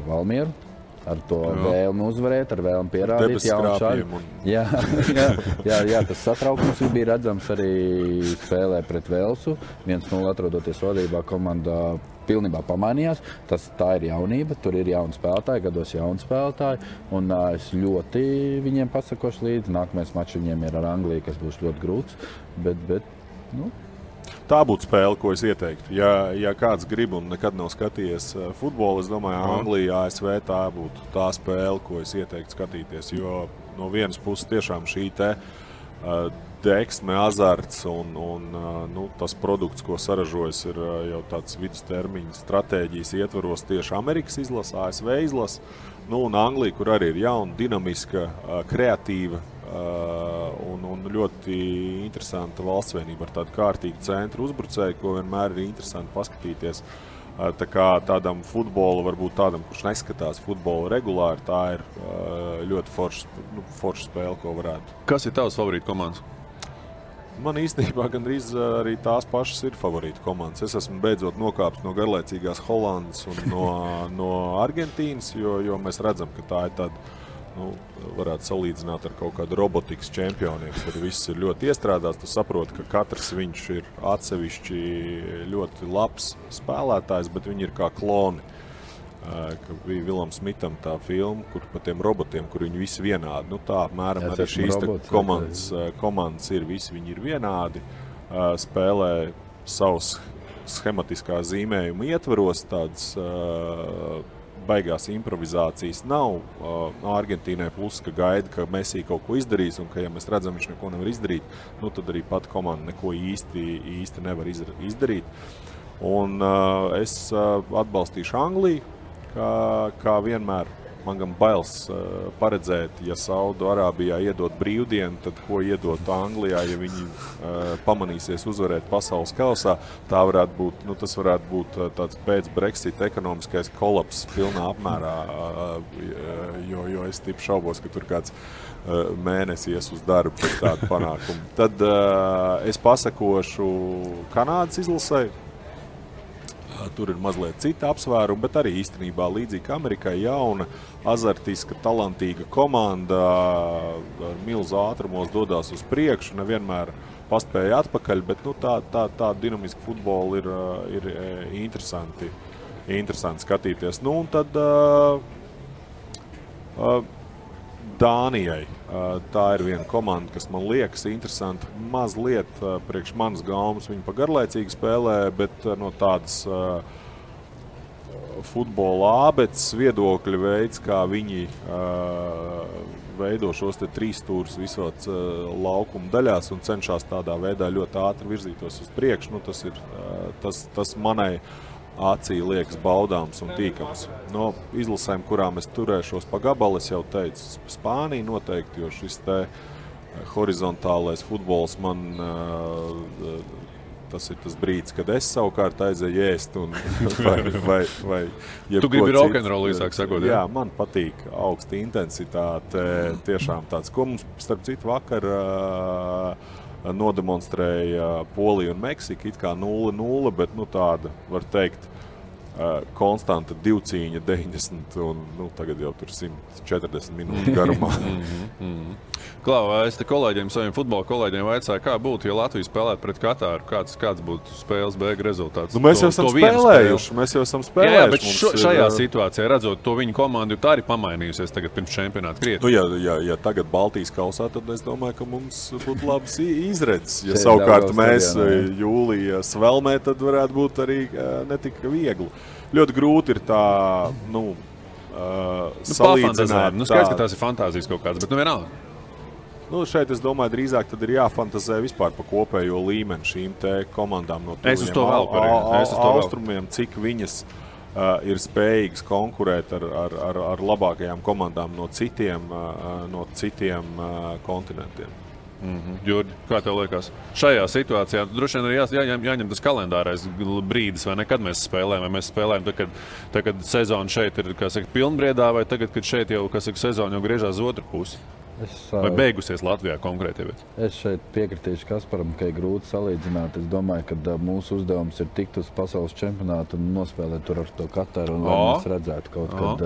Valmieru. Ar to vēlmi uzvarēt, ar vēlmi pierādīt jaunu šādu. Jā, tas satraukums bija redzams arī spēlē pret Velsu. 1-0 atrodoties vadībā, komanda pilnībā pamainījās. Tā ir jaunība, tur ir jauni spēlētāji, gados jauni spēlētāji. Un es ļoti viņiem pasakošu līdzi. Nākamais mačs viņiem ir ar Angliju, kas būs ļoti grūts. Bet tā būtu spēle, ko es ieteiktu. Ja kāds grib un nekad nav skatījies futbolu, es domāju, Anglija, ASV tā būtu tā spēle, ko es ieteiktu skatīties. Jo no vienas puses tiešām šī deksme, azarts un tas produkts, ko saražojas, ir jau tāds vidustermiņa stratēģijas ietvaros tieši Amerikas izlase, ASV izlase. Un Anglija, kur arī ir jauna, dinamiska, kreatīva, un ļoti interesanta valstsvienība ar tādu kārtīgu centru uzbrucēju, ko vienmēr ir interesanti paskatīties. Tā kā tādam futbolu, varbūt tādam, kurš neskatās futbolu regulāri, tā ir ļoti forša spēle, ko varētu. Kas ir tavs favorīta komandas? Man īstenībā gandrīz arī tās pašas ir favorīta komandas. Es esmu beidzot nokāpis no garlaicīgās Holandas un no Argentīnas, jo mēs redzam, ka tā ir tāda, varētu salīdzināt ar kaut kādu robotikas čempioniem, kur viss ir ļoti iestrādāts. Tu saproti, ka katrs viņš ir atsevišķi ļoti labs spēlētājs, bet viņi ir kā kloni. Ka bija Vilam Smitam tā filma, kur pa tiem robotiem, kur viņi visi vienādi. Tā apmēram arī šīs komandas ir, visi viņi ir vienādi, spēlē savus schematiskā zīmējuma ietvaros, tādas baigās improvizācijas nav. Argentīnai plus, ka gaida, ka Messi kaut ko izdarīs, un ka, ja mēs redzam, viņš neko nevar izdarīt, tad arī pat komanda neko īsti nevar izdarīt. Un es atbalstīšu Angliju, kā vienmēr. Man gan bailes paredzēt, ja Saudu-Arābijā iedot brīvdienu, tad ko iedot Anglijā, ja viņi pamanīsies uzvarēt pasaules kausā. Tas varētu būt tāds pēc Brexit ekonomiskais kolaps pilnā apmērā, jo es tipu šaubos, ka tur kāds mēnesi ies uz darbu pēc tādu panākumu. Tad es pasakošu Kanādas izlasē. Tur ir mazliet cita apsvēruma, bet arī īstenībā līdzīgi Amerikai jauna, azartiska, talantīga komanda ar milzu ātrumos dodās uz priekšu. Nevienmēr paspēja atpakaļ, bet tā dinamiska futbola ir interesanti skatīties. Nu, un tad Dānijai. Tā ir viena komanda, kas man liekas interesanti. Mazliet priekš manas gaumas viņi pa garlaicīgi spēlē, bet no tādas futbola ābeces viedokļa veids, kā viņi veido šos te trīsstūrus visos laukuma daļās un cenšas tādā veidā ļoti ātri virzītos uz priekšu. Nu, tas ir tas manai acī liekas baudāms un tīkams. No izlasēm, kurām es turēšos pa gabalu, es jau teicu, Spānija noteikti, jo šis te horizontālais futbols man tas ir tas brīdis, kad es savukārt aizēju ēst un vai Tu gribi rokenrolu īsāk sakot, jā, man patīk augsta intensitāte, tiešām tāds, ko mums starp citu vakar nodemonstrēja Polija un Meksika, it kā 0-0, bet tāda, var teikt, konstanta divcīņa 90 un tagad jau tur 140 minūtes garumā. Klau, es te saviem futbola kolēģiem vaicāju, kā būtu, ja Latvija spēlētu pret Katāru, kāds būtu spēles beigu rezultāts? Mēs jau esam spēlējuši. Jā, bet šajā situācijā, redzot to viņu komandu, tā arī pamainījusies tagad pirms čempionāta krietni. Ja tagad Baltijas kausā, tad es domāju, ka mums būtu labs izredzes. Ja savukārt mēs jūlija svelmē, tad varētu būt arī netik viegli. Ļoti grūti ir tā, salīdzināt. Skaidrs, ka tās ir fantāzijas kaut kādas, bet vienalga. Šeit, es domāju, drīzāk tad ir jāfantazē vispār pa kopējo līmeni šīm te komandām no austrumiem, cik viņas ir spējīgas konkurēt ar labākajām komandām no citiem kontinentiem. Jurģi, kā tev liekas? Šajā situācijā droši vien ir jāņem tas kalendārais brīdis, vai nekad mēs spēlējam, vai mēs spēlējam tad, kad sezona šeit ir, pilnbriedā, vai tagad, kad šeit jau, sezona jau griežās uz otru pusi? Vai beigusies Latvijā konkrēti? Es šeit piekritīšu Kasparam, ka ir grūti salīdzināt. Es domāju, ka mūsu uzdevums ir tikt uz pasaules čempionātu un nospēlēt tur ar to Kataru, un lai mēs redzētu kaut kad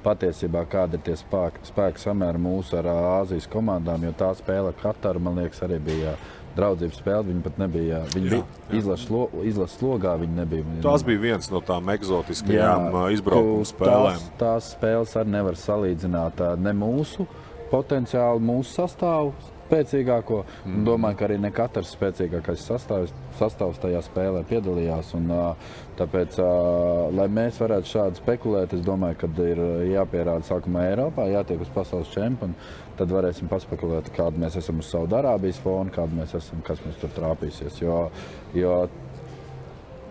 patiesībā kāda ir tie spēki samēri mūsu ar Āzijas komandām, jo tā spēle ar Kataru, man liekas, arī bija draudzības spēle. Viņi pat nebija, bija izlases slogā, viņi nebija. Tās bija viens no tām eksotiskajām izbraukuma spēlēm. Tās spēles arī nevar salīdzināt ne mūsu potenciāli mūsu sastāvu spēcīgāko. Domāju, ka arī ne katrs spēcīgākais sastāvs tajā spēlē piedalījās. Un, tāpēc, lai mēs varētu šādi spekulēt, es domāju, ka ir jāpierāda sākumā Eiropā, jātiek uz pasaules čempionu. Tad varēsim paspekulēt, kāda mēs esam uz Saudārābijas fonu, kāda mēs esam, kas mums tur trāpīsies. Jo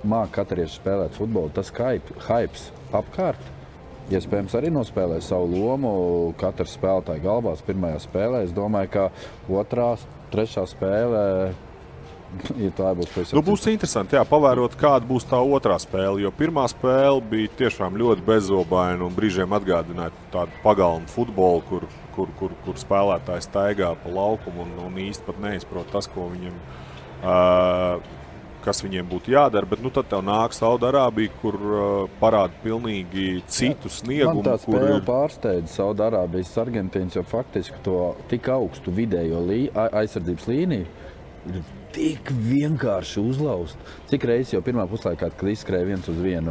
māk katarieši spēlēt futbolu, tas hypes apkārt. Iespējams, arī nospēlē savu lomu katrs spēlētāja galvās pirmajā spēlē. Es domāju, ka otrā, trešā spēlē, ja tā būs pēc būs interesanti, pavērot, kāda būs tā otrā spēle, jo pirmā spēle bija tiešām ļoti bezobaina un brīžiem atgādināja tādu pagalmu futbolu, kur spēlētājs staigā pa laukumu un īsti pat neizprot tas, ko viņam kas viņiem būtu jādara, bet tad tev nāk Saudārābija, kur parāda pilnīgi citu sniegumu. Man tā spēle pārsteidza Saudārābijas Argentīnas, jo faktiski to tik augstu vidējo aizsardzības līniju ir tik vienkārši uzlaust. Cik reizes jau pirmā puslaikā, kad izskrēja 1-1,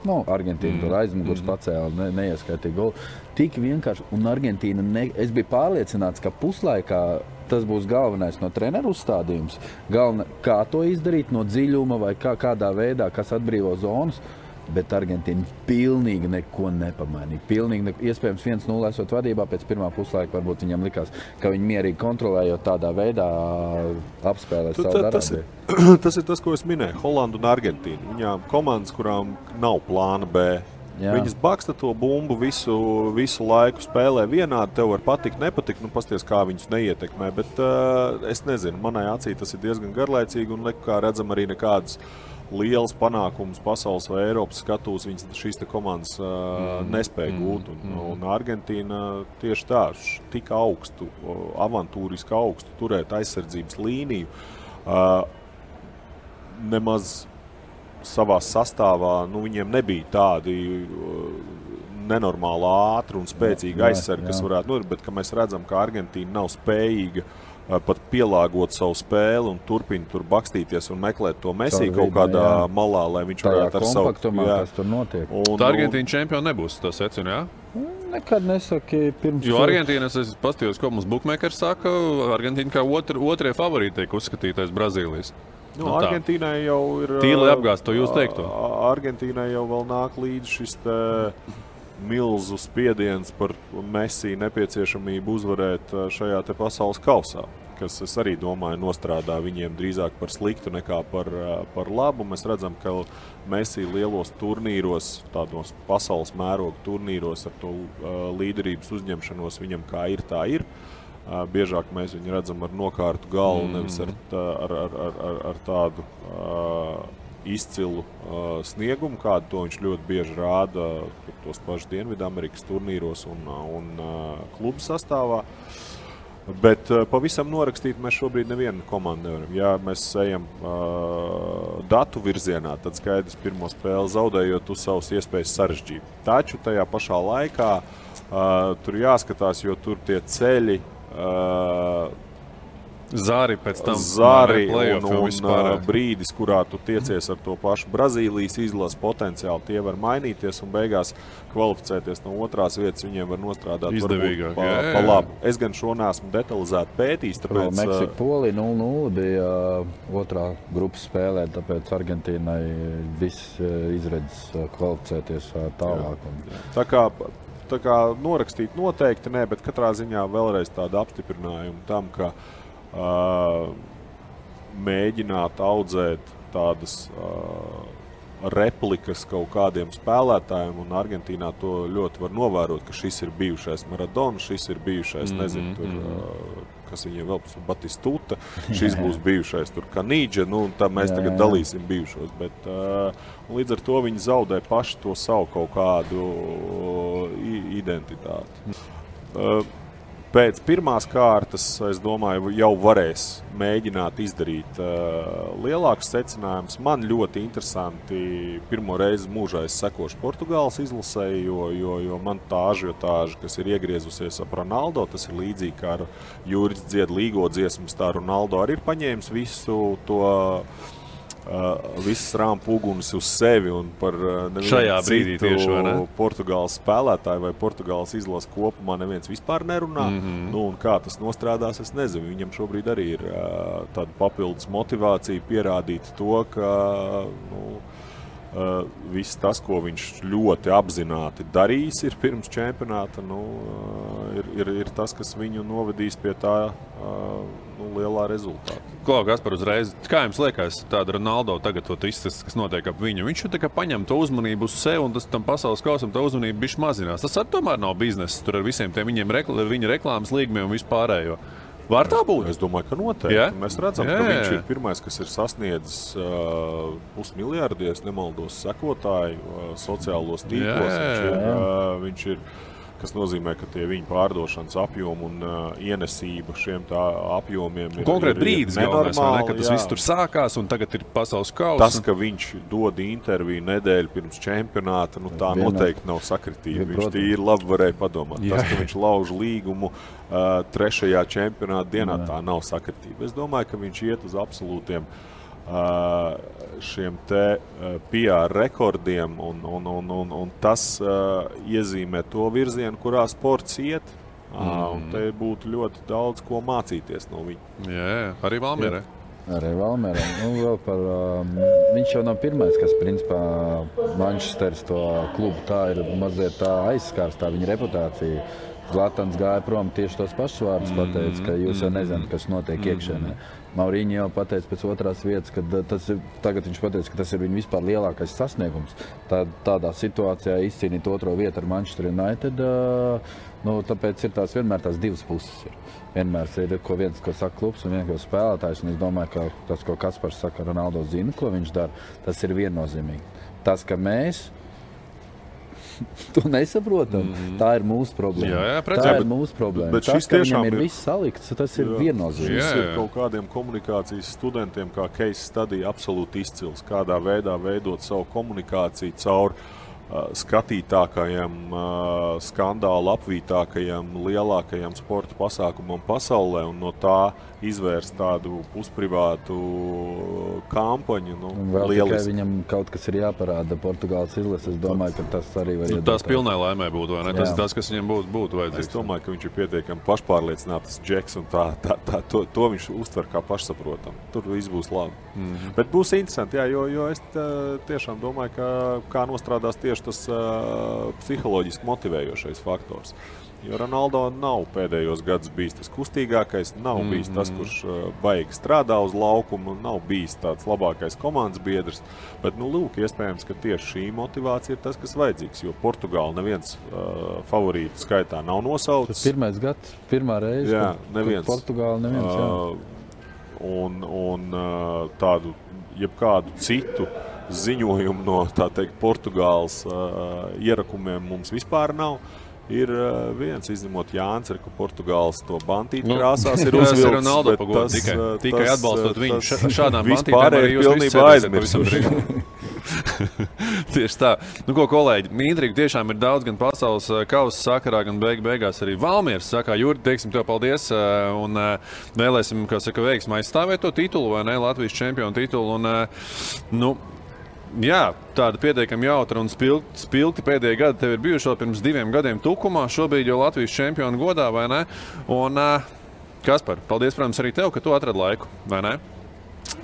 Argentīna tur aizmugurs pacēla, neieskaitīja golu. Tik vienkārši, un Argentīna, es biju pārliecināts, ka puslaikā tas būs galvenais no treneru uzstādījums. Kā to izdarīt no dziļuma vai kādā veidā, kas atbrīvo zonas, bet Argentīna pilnīgi neko nepamainīja. Iespējams 1-0 esot vadībā, pēc pirmā puslaika varbūt viņam likās, ka viņi mierīgi kontrolējot tādā veidā apspēlē Saudārābiju. Tas ir tas, ko es minēju, Holandu un Argentīnu. Viņām komandas, kurām nav plāna B. Jā. Viņas baksta to bumbu visu laiku, spēlē vienādi, tev var patikt, nepatikt, pasties, kā viņus neietekmē, bet es nezinu, manai acī tas ir diezgan garlaicīgi un kā redzam arī nekādas lielas panākumus pasaules vai Eiropas skatūs, šīs te komandas nespēja gūt, un Argentīna tieši tā, tik augstu, avantūriski augstu turēt aizsardzības līniju, nemaz savā sastāvā, viņiem nebija tādi nenormāli ātri un spēcīgi aizsargi, kas varētu, bet ka mēs redzam, ka Argentīna nav spējīga pat pielāgot savu spēli un turpina tur bakstīties un meklēt to Messi kaut kādā malā, lai viņš varētu ar savu... Kas tur notiek. Tā Argentīna čempioni nebūs, tas secina, jā? Nekad nesaki pirms... Jo Argentīnas, es pastījos, ko mums bookmakers saka, Argentīna kā otrie favorīti tiek uzskatītais Brazīlijas. Argentīnai jau ir... Tīli apgāst to jūs teikto. Argentīnai jau vēl nāk līdz šis milzu spiediens par Messi nepieciešamību uzvarēt šajā te pasaules kausā, kas, es arī domāju, nostrādā viņiem drīzāk par sliktu nekā par labu. Mēs redzam, ka Messi lielos turnīros, tādos pasaules mēroga turnīros ar to līderības uzņemšanos viņam kā ir, tā ir. Biežāk mēs viņu redzam ar nokārtu galvu, nevis ar tādu izcilu sniegumu, kādu to viņš ļoti bieži rāda tos pašus Dienvidamerikas turnīros un klubu sastāvā. Bet pavisam norakstīt mēs šobrīd nevienu komandu nevaram. Ja mēs ejam datu virzienā, tad skaidrs pirmo spēli zaudējot uz savas iespējas sarežģīt. Taču tajā pašā laikā tur jāskatās, jo tur tie ceļi Zāri pēc tam un brīdis, kurā tu tiecies ar to pašu Brazīlijas izlases potenciāli, tie var mainīties un beigās kvalificēties no otrās vietas, viņiem var nostrādāt izdevīgāk, pa labu. Es gan šo neesmu detalizēti pētījis, tāpēc... Meksika Polija 0-0 bija otrā grupas spēlē, tāpēc Argentīnai viss izredzes kvalificēties tālāk. Tā kā norakstīt noteikti ne, bet katrā ziņā vēlreiz tāda apstiprinājuma tam, ka mēģināt audzēt tādas replikas kaut kādiem spēlētājiem, un Argentīnā to ļoti var novērot, ka šis ir bijušais Maradona, šis ir bijušais, nezinu, tur, kas viņiem vēl būs, Batistuta, šis būs bijušais tur Kanīdža, tā mēs tagad dalīsim bijušos, bet līdz ar to viņi zaudē paši to savu kaut kādu identitāti. Pēc pirmās kārtas, es domāju, jau varēs mēģināt izdarīt lielākus secinājumus. Man ļoti interesanti pirmo reizi mūžā es sekošu Portugāles izlasei, jo man tā ažiotāža, kas ir iegriezusies ap Ronaldo, tas ir līdzīgi kā ar Jūris dzied līgo dziesmas, tā Ronaldo arī ir paņēmis visu to visas rāmpu uguns uz sevi un par nevienu citu Portugāles spēlētāju vai Portugāles izlases kopumā neviens vispār nerunā. Un kā tas nostrādās, es nezinu. Viņam šobrīd arī ir tāda papildus motivācija pierādīt to, ka viss tas, ko viņš ļoti apzināti darījis ir pirms čempionāta, ir tas, kas viņu novedīs pie tā lielā rezultāta. Klau, Gaspar, uzreiz, kā jums liekas tāda Ronaldo tagad to izstāsts, kas notiek ap viņu? Viņš tā kā paņem to uzmanību uz sevi un tas tam pasaules kausam tā uzmanība bišķi mazinās. Tas tomēr nav biznesa tur ar visiem tiem viņa reklāmas līgumiem un vispārējo. Var tā būt? Es domāju, ka noteikti. Yeah? Mēs redzam, ka viņš ir pirmais, kas ir sasniedzis pusmiljārdu, ja nemaldos, sekotāju sociālos tīklos. Viņš ir, kas nozīmē, ka tie viņa pārdošanas apjomi un ienesība šiem tā apjomiem ir konkrēti brīdis galvenais, ka tas viss tur sākās un tagad ir pasaules kausa. Tas, ka viņš dod interviju nedēļu pirms čempionāta, tā noteikti nav sakritība. Viņš tīri labi varēja padomāt. Tas, ka viņš lauž līgumu trešajā čempionāta dienā, tā nav sakritība. Es domāju, ka viņš iet uz absolūtiem šiem te PR rekordiem un tas iezīmē to virzienu, kurā sports iet. Un te būtu ļoti daudz ko mācīties no viņa. Jā, arī Valmierē. Arī Valmierē. Viņš jau nav pirmais, kas principā Manchesteras to klubu tā ir mazliet tā aizskārs, tā viņa reputācija. Zlatans gāja prom tieši tos pašus vārdus pateica, ka jūs jau nezināt, kas notiek iekšēnē. Mauriņi jau pateica pēc otrās vietas, ka tagad viņš pateica, ka tas ir viņa vispār lielākais sasniegums. Tādā situācijā izcīnīt otro vietu ar Manchester United, tāpēc ir vienmēr tās divas puses. Vienmēr ir viens, ko saka klubs un viens, ko spēlētājs. Un es domāju, ka tas, ko Kaspars saka, Ronaldo zina, ko viņš dara, tas ir viennozīmīgi. Tas, ka mēs to nesaprotam. Tā ir mūsu problēma. Tā ir mūsu problēma. Bet tas, ka viņam ir viss salikts, tas ir viennozīmīgi. Šis ir kaut kādiem komunikācijas studentiem, kā case study, absolūti izcils. Kādā veidā veidot savu komunikāciju caur skatītākajam, skandālu apvītākajam, lielākajam sporta pasākumam pasaulē un no tā izvērst tādu pusprivātu kampaņu. Vēl tikai viņam kaut kas ir jāparāda Portugāles izlases. Es domāju, ka tas arī var iedot. Tas pilnai laimē būtu, vai ne? Tas ir tas, kas viņam būtu vajadzīgs. Es domāju, ka viņš ir pietiekami pašpārliecināts džeks un to viņš uztver kā pašsaprotam. Tur viss būs labi. Bet būs interesanti, jā, jo es tiešām domāju, ka kā nostrādās tieši tas psiholoģiski motivējošais faktors. Jo Ronaldo nav pēdējos gadus bijis tas kustīgākais, nav bijis tas, kurš baigi strādā uz laukumu, nav bijis tāds labākais komandas biedrs. Bet, lūk, iespējams, ka tieši šī motivācija ir tas, kas vajadzīgs, jo Portugāla neviens favorītu skaitā nav nosaucis. Tas pirmais gads, pirmā reize, jā, neviens. Portugāla neviens, jā. Un tādu, jebkādu citu ziņojumu no, tā teikt, Portugāles ierakumiem mums vispār nav. Ir viens, izņemot Jānis, ka Portugāles to bantīti krāsās ir uzvilks. Ronaldo pagodu, tikai atbalstot viņu šādām bantītēm. Vispār ir pilnībā aizmirsuši. Tieši tā. Ko, kolēģi, intriga tiešām ir daudz gan pasaules kausa sakarā, gan beigās arī Valmieras sakā. Jurdi, teiksim tev paldies un vēlēsim, kā saka, veiksmi aizstāvēt to titulu, vai ne, Latvijas čempionu titulu. Un, jā, tāda pietiekami jautra un spilgti pēdējie gadi tev ir bijuši vēl pirms 2 gadiem Tukumā, šobrīd jau Latvijas čempionu godā, vai ne? Un, Kaspar, paldies, protams, arī tev, ka tu atradi laiku, vai ne?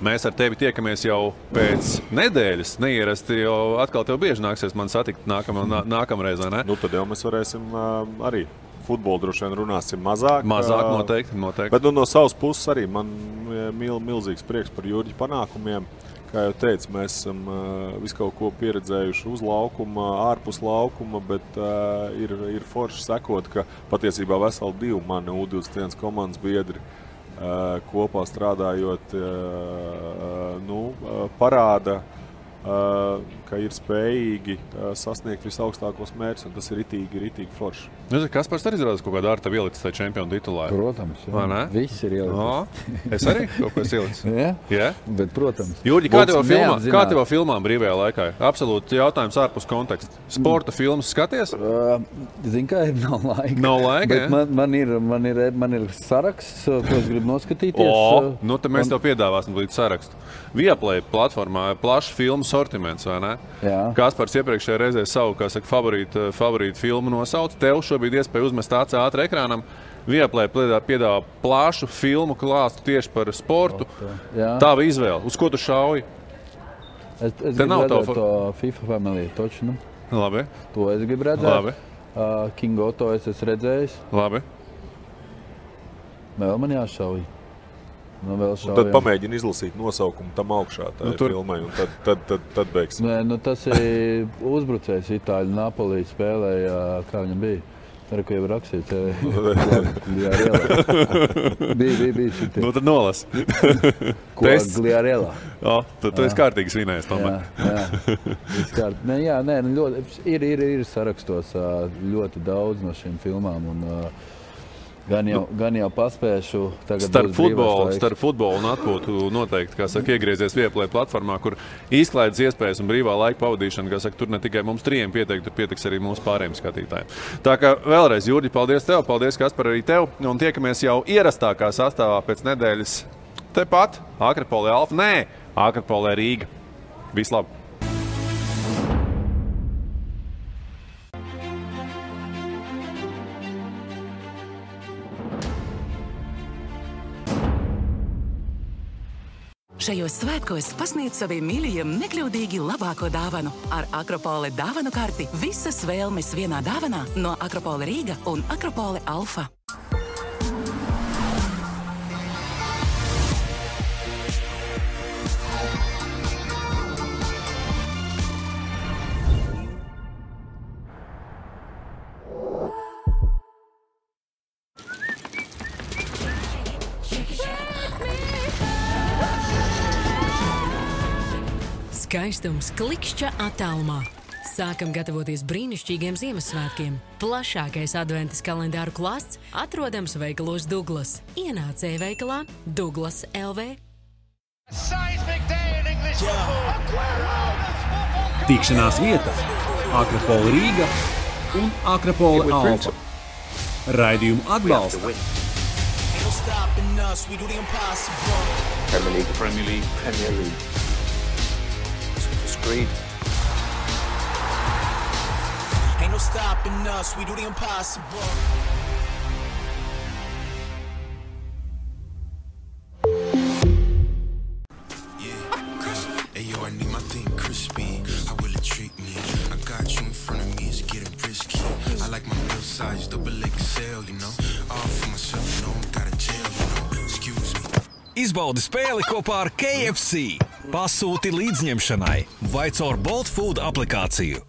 Mēs ar tevi tiekamies jau pēc nedēļas, neierasti, jo atkal tev bieži nāksies man satikt nākamreiz, vai ne? Tad jau mēs varēsim arī futbolu droši vien runāsim mazāk. Mazāk, noteikti. Bet no savas puses arī man milzīgs prieks par Jurģi panākumiem. Kā jau teicu, mēs esam visu kaut ko pieredzējuši uz laukuma, ārpus laukuma, bet ir forši sekot, ka patiesībā veseli 2 mani U21 komandas biedri kopā strādājot, parāda, ka ir spējīgi sasniegt visaugstākos mērķus, un tas ir ritīgi forši. Kaspars arī izrādās kaut kādā ar tevi ielicis tajā čempionu titulā? Protams, jā. Viss ir ielicis. Es arī kaut ko esmu ielicis? Jā, bet protams. Jurģi, kā tev filmām brīvajā laikā? Absolūti jautājums ārpus konteksta. Sporta filmas skaties? Zin kā, nav laika. Nav laika, bet man ir saraksts, ko es gribu noskatīties. Tad mēs tev piedāvāsim līdz sarakstu. Viaplay platformā plašs filmu sortiments, vai ne? Jā. Kaspars iepriekšējā reizē savu, kā saka, favorītu filmu nosauc. Tev šobrīd iespēja uzmest ātri ekrānam. Viaplay piedāvā plašu filmu klāstu tieši par sportu. Tava izvēle. Uz ko tu šauji? Es gribu redzēt to FIFA Family točnu. Labi. To es gribu redzēt. Labi. King Otto es esmu redzējis. Labi. Vēl man jāšauj. Tad pamēģini izlasīt nosaukumu tam augšā filmai, un tad beigsim. Tas ir uzbrucējs Itāļu Napolī spēlēja, kā viņam bija. Ko jau rakstīts, Gliarela. Bija šitie. Tad nolas. Gliarela. Tu esi kārtīgi svinējis, tomēr. Jā. Ir sarakstos ļoti daudz no šīm filmām, un gan jau paspēšu. Starp futbolu un atpūtu noteikti, kā saka, iegriezies Viaplay platformā, kur izklaides iespējas un brīvā laika pavadīšana, kā saka, tur ne tikai mums 3 tur pietiks arī mūsu pārējiem skatītājiem. Tā kā vēlreiz, Jurģi, paldies tev, paldies, Kaspar, arī tev, un tiekamies jau ierastākā sastāvā pēc nedēļas tepat, Akropolē Alfa, Akropolē Rīga. Vislabāk! Šajos svētkos pasniedz saviem mīļajiem nekļūdīgi labāko dāvanu. Ar Akropole dāvanu karti visas vēlmes vienā dāvanā no Akropole Rīga un Akropole Alfa. Skaistums klikšķa attālumā. Sākam gatavoties brīnišķīgiem Ziemassvētkiem. Plašākais adventas kalendāru klāsts atrodams veikalos Douglas. Ienāc e-veikalā Douglas LV. Tikšanās vieta Akropola Rīga un Akropola Alfa. Raidījumu atbalsta Premier League. Screed. Ain't no stopping us, we do the impossible. I need my thing crispy. How will it treat me? I got you in front of me, it's getting risky. I like my meal size, double XL, you know. All for myself, you know, I'm got a jail, you know. Excuse me. Izbaudi spēli kopā ar KFC. Pasūti līdzņemšanai vai caur Bolt Food aplikāciju.